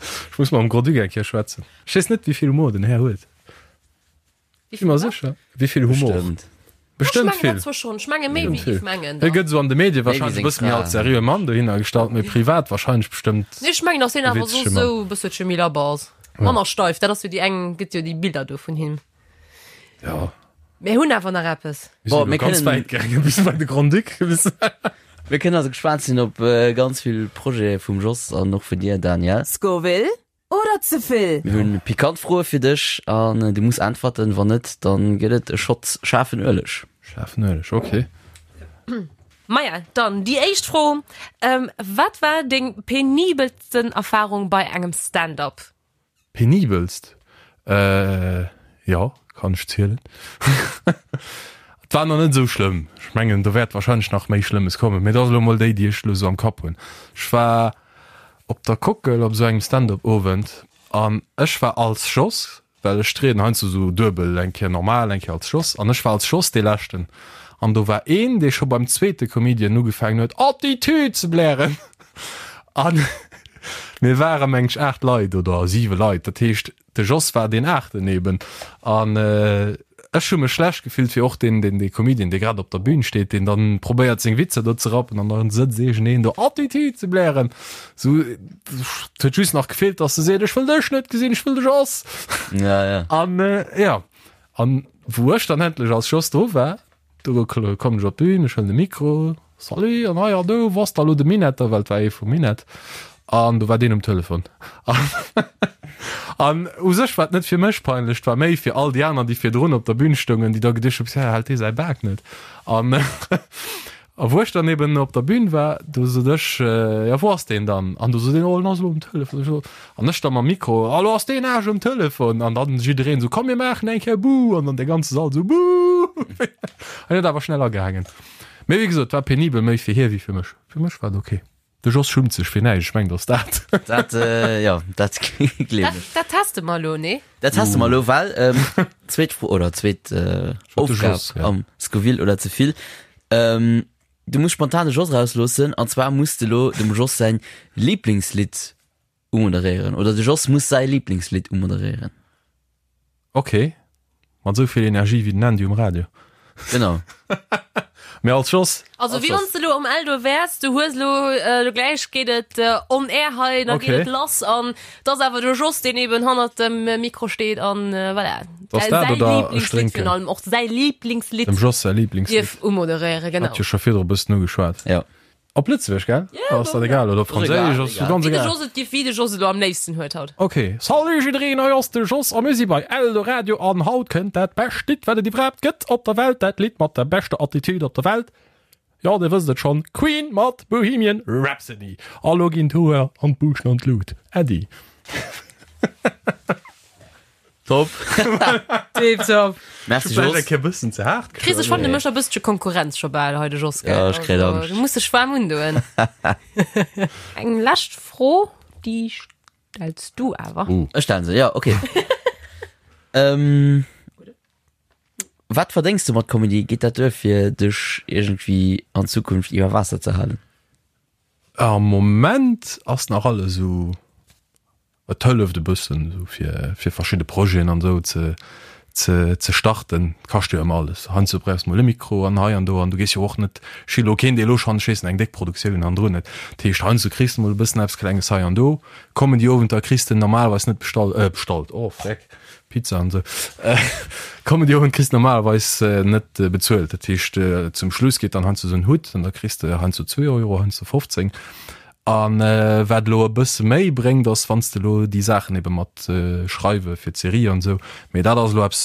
Ech muss mam Grand-Duc eng Kéier schwätzen. Ech weess net, wéi vill Humor den Här huet. Wéi Si mer sécher? Wéi vill Humor? Bestëmmt. Bestëmmt Ech mengen vill. dat zwar schonn. Ech menge méi wéi Vill. ech mengen Hie dann. gëtt esou an de Medie Méi wéi wahrscheinlech e seng bësse méi Fra. als seriöe Mann dohinner gestallt, mee privat wahrscheinlech bestëmmt. Nee, ech mengen, dass hien E awer soss witzege Mann. esou e bësselche méi labber ass. Manner steif. Dat ass jo déi eng, gëtt jo déi Bilder do vun him. Ja. Mir hunn awer nach eppes. Mir Bon, sinn mir elo ganz kënnen- wäit gaangen, bis bei de Grand-Duc. Mir kënnen also gespaant sinn op ganz vill Projete vum Jos an och vun dir, Daniel. Scoville oder ze vill? Mir hunn pikant Froe fir dech an du muss äntwerten. Wann net, dann gëtt et e Shot schaarfen Ueleg. Schaarfen Ueleg, okay. Maja, dann déi éischt Fro, Wat war deng penibelsten Erfarung bei engem Stand-up? Penibelst? Äh, jo, kann ech zielen. Et war nach net esou schlëmm. Ech mengen, do wäert wahrscheinlech nach méi Schlëmmes kommen, mee dat ass elo mol déi, déi ech elo esou am Kapp hunn. Ech war op der Kockel op esou engem Stand-up-Owend an ech war als Jos, well ech trieden heiansdo esou duebel, eng Kéier normal, eng Kéier als Jos, an ech war als Jos dee Leschten. An do war een, dee scho beim zweete Comedian ugefaangen huet, Attitüd ze blären. An mir ware meng ech 8 Leit oder 7 Leit, dat heescht de Jos war deen aachten eben. An ech hu mech schlecht gefillt fir och deen, deen dee Comedian, dee grad op der Bühn steet, deen dann probéiert seng Witzer do ze rappen an dann sëtzt iergendeen do Attitüd ze blären. Sou, et huet just nach gefeelt, dass e seet, ech wëll dech net gesinn, ech wëll de Jos. Ja, ja. An jo, an wou ech dann endlech als Jos do war, Do kommen ech op d'Bühn, ech huelen de Mikro, Salut, an hei an do, wou ass da lo de Minetter, well et war ee vum Minett, an do war deen um Telefon. An u sech war et net fir mech peinlech, et war méi fir all déi aner, déi virdrun op der Bühn stoungen, déi da geduecht hunn, Pss, hält dee säi Bak net. An a wou ech dann eben op der Bühn war, do sot ech, Jo, wou ass deen dann? An do sot een, Oh, en ass elo um Telefon. Ech so, An ech da mam Mikro, Hallo, ass deen Aarsch um Telefon? An dann jiddereen esou, Komm mir maachen eng Kéier Buh! An dann de ganze Sall esou, Buh! An huet awer schnell agehaangen. Mee wéi gesot, war penibel, méi fir hie wéi fir mech. Fir mech war et ok. De Jos schummt sech fir näischt, ech mengen, dass dat. Dat, jo, dat gleewen ech. Dat teste mer elo, nee? Dat teste mer elo, well zweet Fro oder zweet Aufgab am Scoville oder ze vill. Du muss spontan de Jos erausloossen an zwar muss de elo dem Jos säin Liblingslidd Umoderéieren oder de Jos muss säi Lieblingslidd umoderéieren. Ok, mat esou vill Energie wéi den Andy um Radio. Genau. Mee als Jos. Also wéi wann s de elo um Eldo wäers, du hues elo, elo gläich geet et on air hei, da geet et lass an et ass awer de Jos, deen eben hannert dem Mikro steet an voilà. Ass dat Säi oder ech Lieblingslidd drénken? virun allem, och säi Lieblingslidd Dem Jos säi Lieblingslidd. dierf umoderéieren, genau. Hat jo scho virdru e bëssen ugeschwat. Jo. Op Lëtzebuergesch, gell? Ja, Ass dat egal? Oder op Franséisch? Ass egal. ganz Wéi de egal. Jos et giff, wéi de Jos et elo am léifsten huet haut. Ok. Salut jiddereen, hei ass de Jos a mir si bei Eldoradio an haut kënnt dat bescht Lidd wat et iwwerhaapt gëtt op der Welt, dat Lidd mat der beschter Attitude op der Welt, jo dir wësst et schonn, Queen mat Bohemian Rhapsody. A lo ginn d'Hoer an d'Buuschten an d'Lut. Äddi. Top. Tiptop. Merci Vläicht Jos. eng Kéier bëssen ze haart Chris, ech fannen, du méchs e bëssche Konkurrenz scho bal hei de Jos, gell? Ja, ech kréien Also, Angscht. Du muss dech waarm undoen. Eng lescht Fro, déi stells du awer. Ech stellen se, ja, okay. ähm, wat verdéngs du mat Comedy? Geet dat duer fir dech iergendwéi an Zukunft iwwer Waasser ze halen? Am Moment ass nach alles esou Et hëlleft e bëssen esou fir fir verschidde Projeten an esou ze ze ze starten. Et kascht jo ëmmer alles. Heiansdo brauchs de mol e Mikro an hei an do an du gees jo och net, ech si elo keen dee elo schonn, ech weess net, eng déck Produktioun hannendrun huet. Dat heescht heiansdo kriss de mol e bëssen eppes Klenges hei an do. Comedy-Owenter kriss de normalerweis net bestall bestallt, oh freck, Pizza an esou. Comedy-Owend kriss de normalerweis net bezuelt. Dat heescht zum Schluss geet dann heiansdo esou en Hutt an da kriss de heiansdo zwee Euro, heiansdo 15. A wat elo e bësse méi bréngt, ass wann s de elo déi Saachen ebe mat schreiwe fir d'Serie an esou, mee dat ass elo eppes,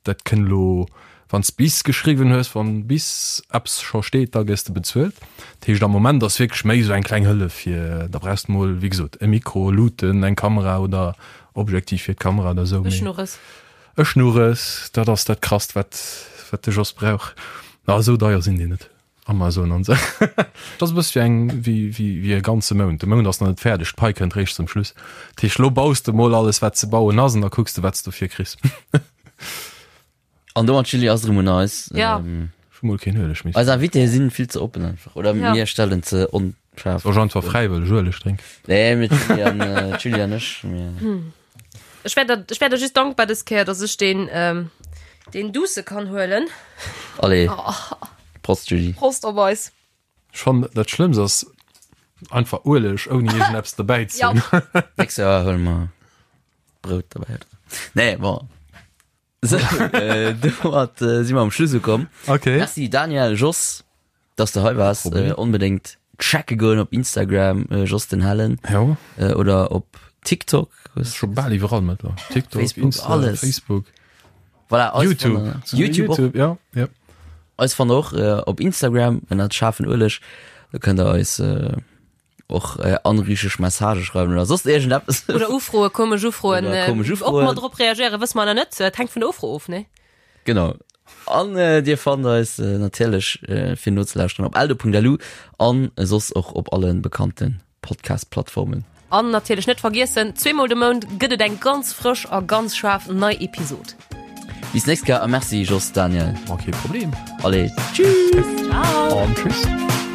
dat kënn elo, wann s bis geschriwwen hues, wann bis eppes scho steet, da gëss de bezuelt. Dat heescht am Moment ass wierklech méi esou eng kleng Hëllef fir, da brauchs de mol, wéi gesot, e Mikro, Luuten, eng Kamera oder Objektiv fir d'Kamera oder esou. E Schnurres. E Schnurres, dat ass dat Krasst, wat wat de Jos brauch. Na, esou deier sinn déi net. Amazon an sou. Dat ass e bësse wéi eng, wéi, wéi, wéi e ganze Mount. De Mount ass nach net fäerdeg, d'Pai kënnt réischt zum Schluss. Dat heescht, lo baus de mol alles, wat ze bauen ass, an da kucks de, wat s de dofir kriss. An domat, Julie, ass et erëm un eis. Ja. Ähm. Ech. Hu mol keen Ueleg méi. Eis Invitéë sinn vill ze oppen einfach oder Ja. mir stellen ze onscharf. Soll ech einfach fräiwëlleg Ueleg drénken? Nee, mir d'Julie an äh, d'Julie an ech. Mir... Ech wär der, ech wär der just dankbar dës Kéier, dass ech den, ähm, den Douce kann huelen. Allez. Prost Julie. Prost op eis. Ech fannen dat Schlëmmst ass einfach Ueleg ouni iergendeppes dobäi ze hunn. Nächst Joer huele mer Brout dobäi. Nee, bon. Sou, äh, domat äh, si mer am Schluss ukomm. Okay. Merci Daniel, Jos, dass du hei warst. Problem. Äh, onbedéngt checke goen op Instagram, äh, Jos den Hellen, Jo, äh, oder op TikTok. scho bal iwwerall mëttlerweil. TikTok, Facebook, Insta, alles. Facebook, Voilà, eis YouTube. fannt der- YouTube, YouTube, och. YouTube, ja, ja. Eis fannt der och äh, op Instagram ënnert schaarfen Ueleg. Do kënnt der eis äh, och äh, anriecheg Messagë schreiwen oder soss iergendeppes. Oder Ufroe, komesch Ufroen. Oder komesch Äh, Ufroen. Ob mer drop reagéieren, wësse mer nach net. Et hänkt vun der Ufro of, ne? Genau. An äh, dir fannt eis äh, natierlech äh, fir nozelauschteren op eldo.lu an soss och op allen bekannten Podcast-Plattformen. An natierlech net vergiessen, zweemol de Mount gëtt et eng ganz frësch a ganz schaarf nei Episod. Bis nächst Kéier a merci Jos, Daniel. Ma kee Problem. Allez, tschüss! Ciao! An tschüss.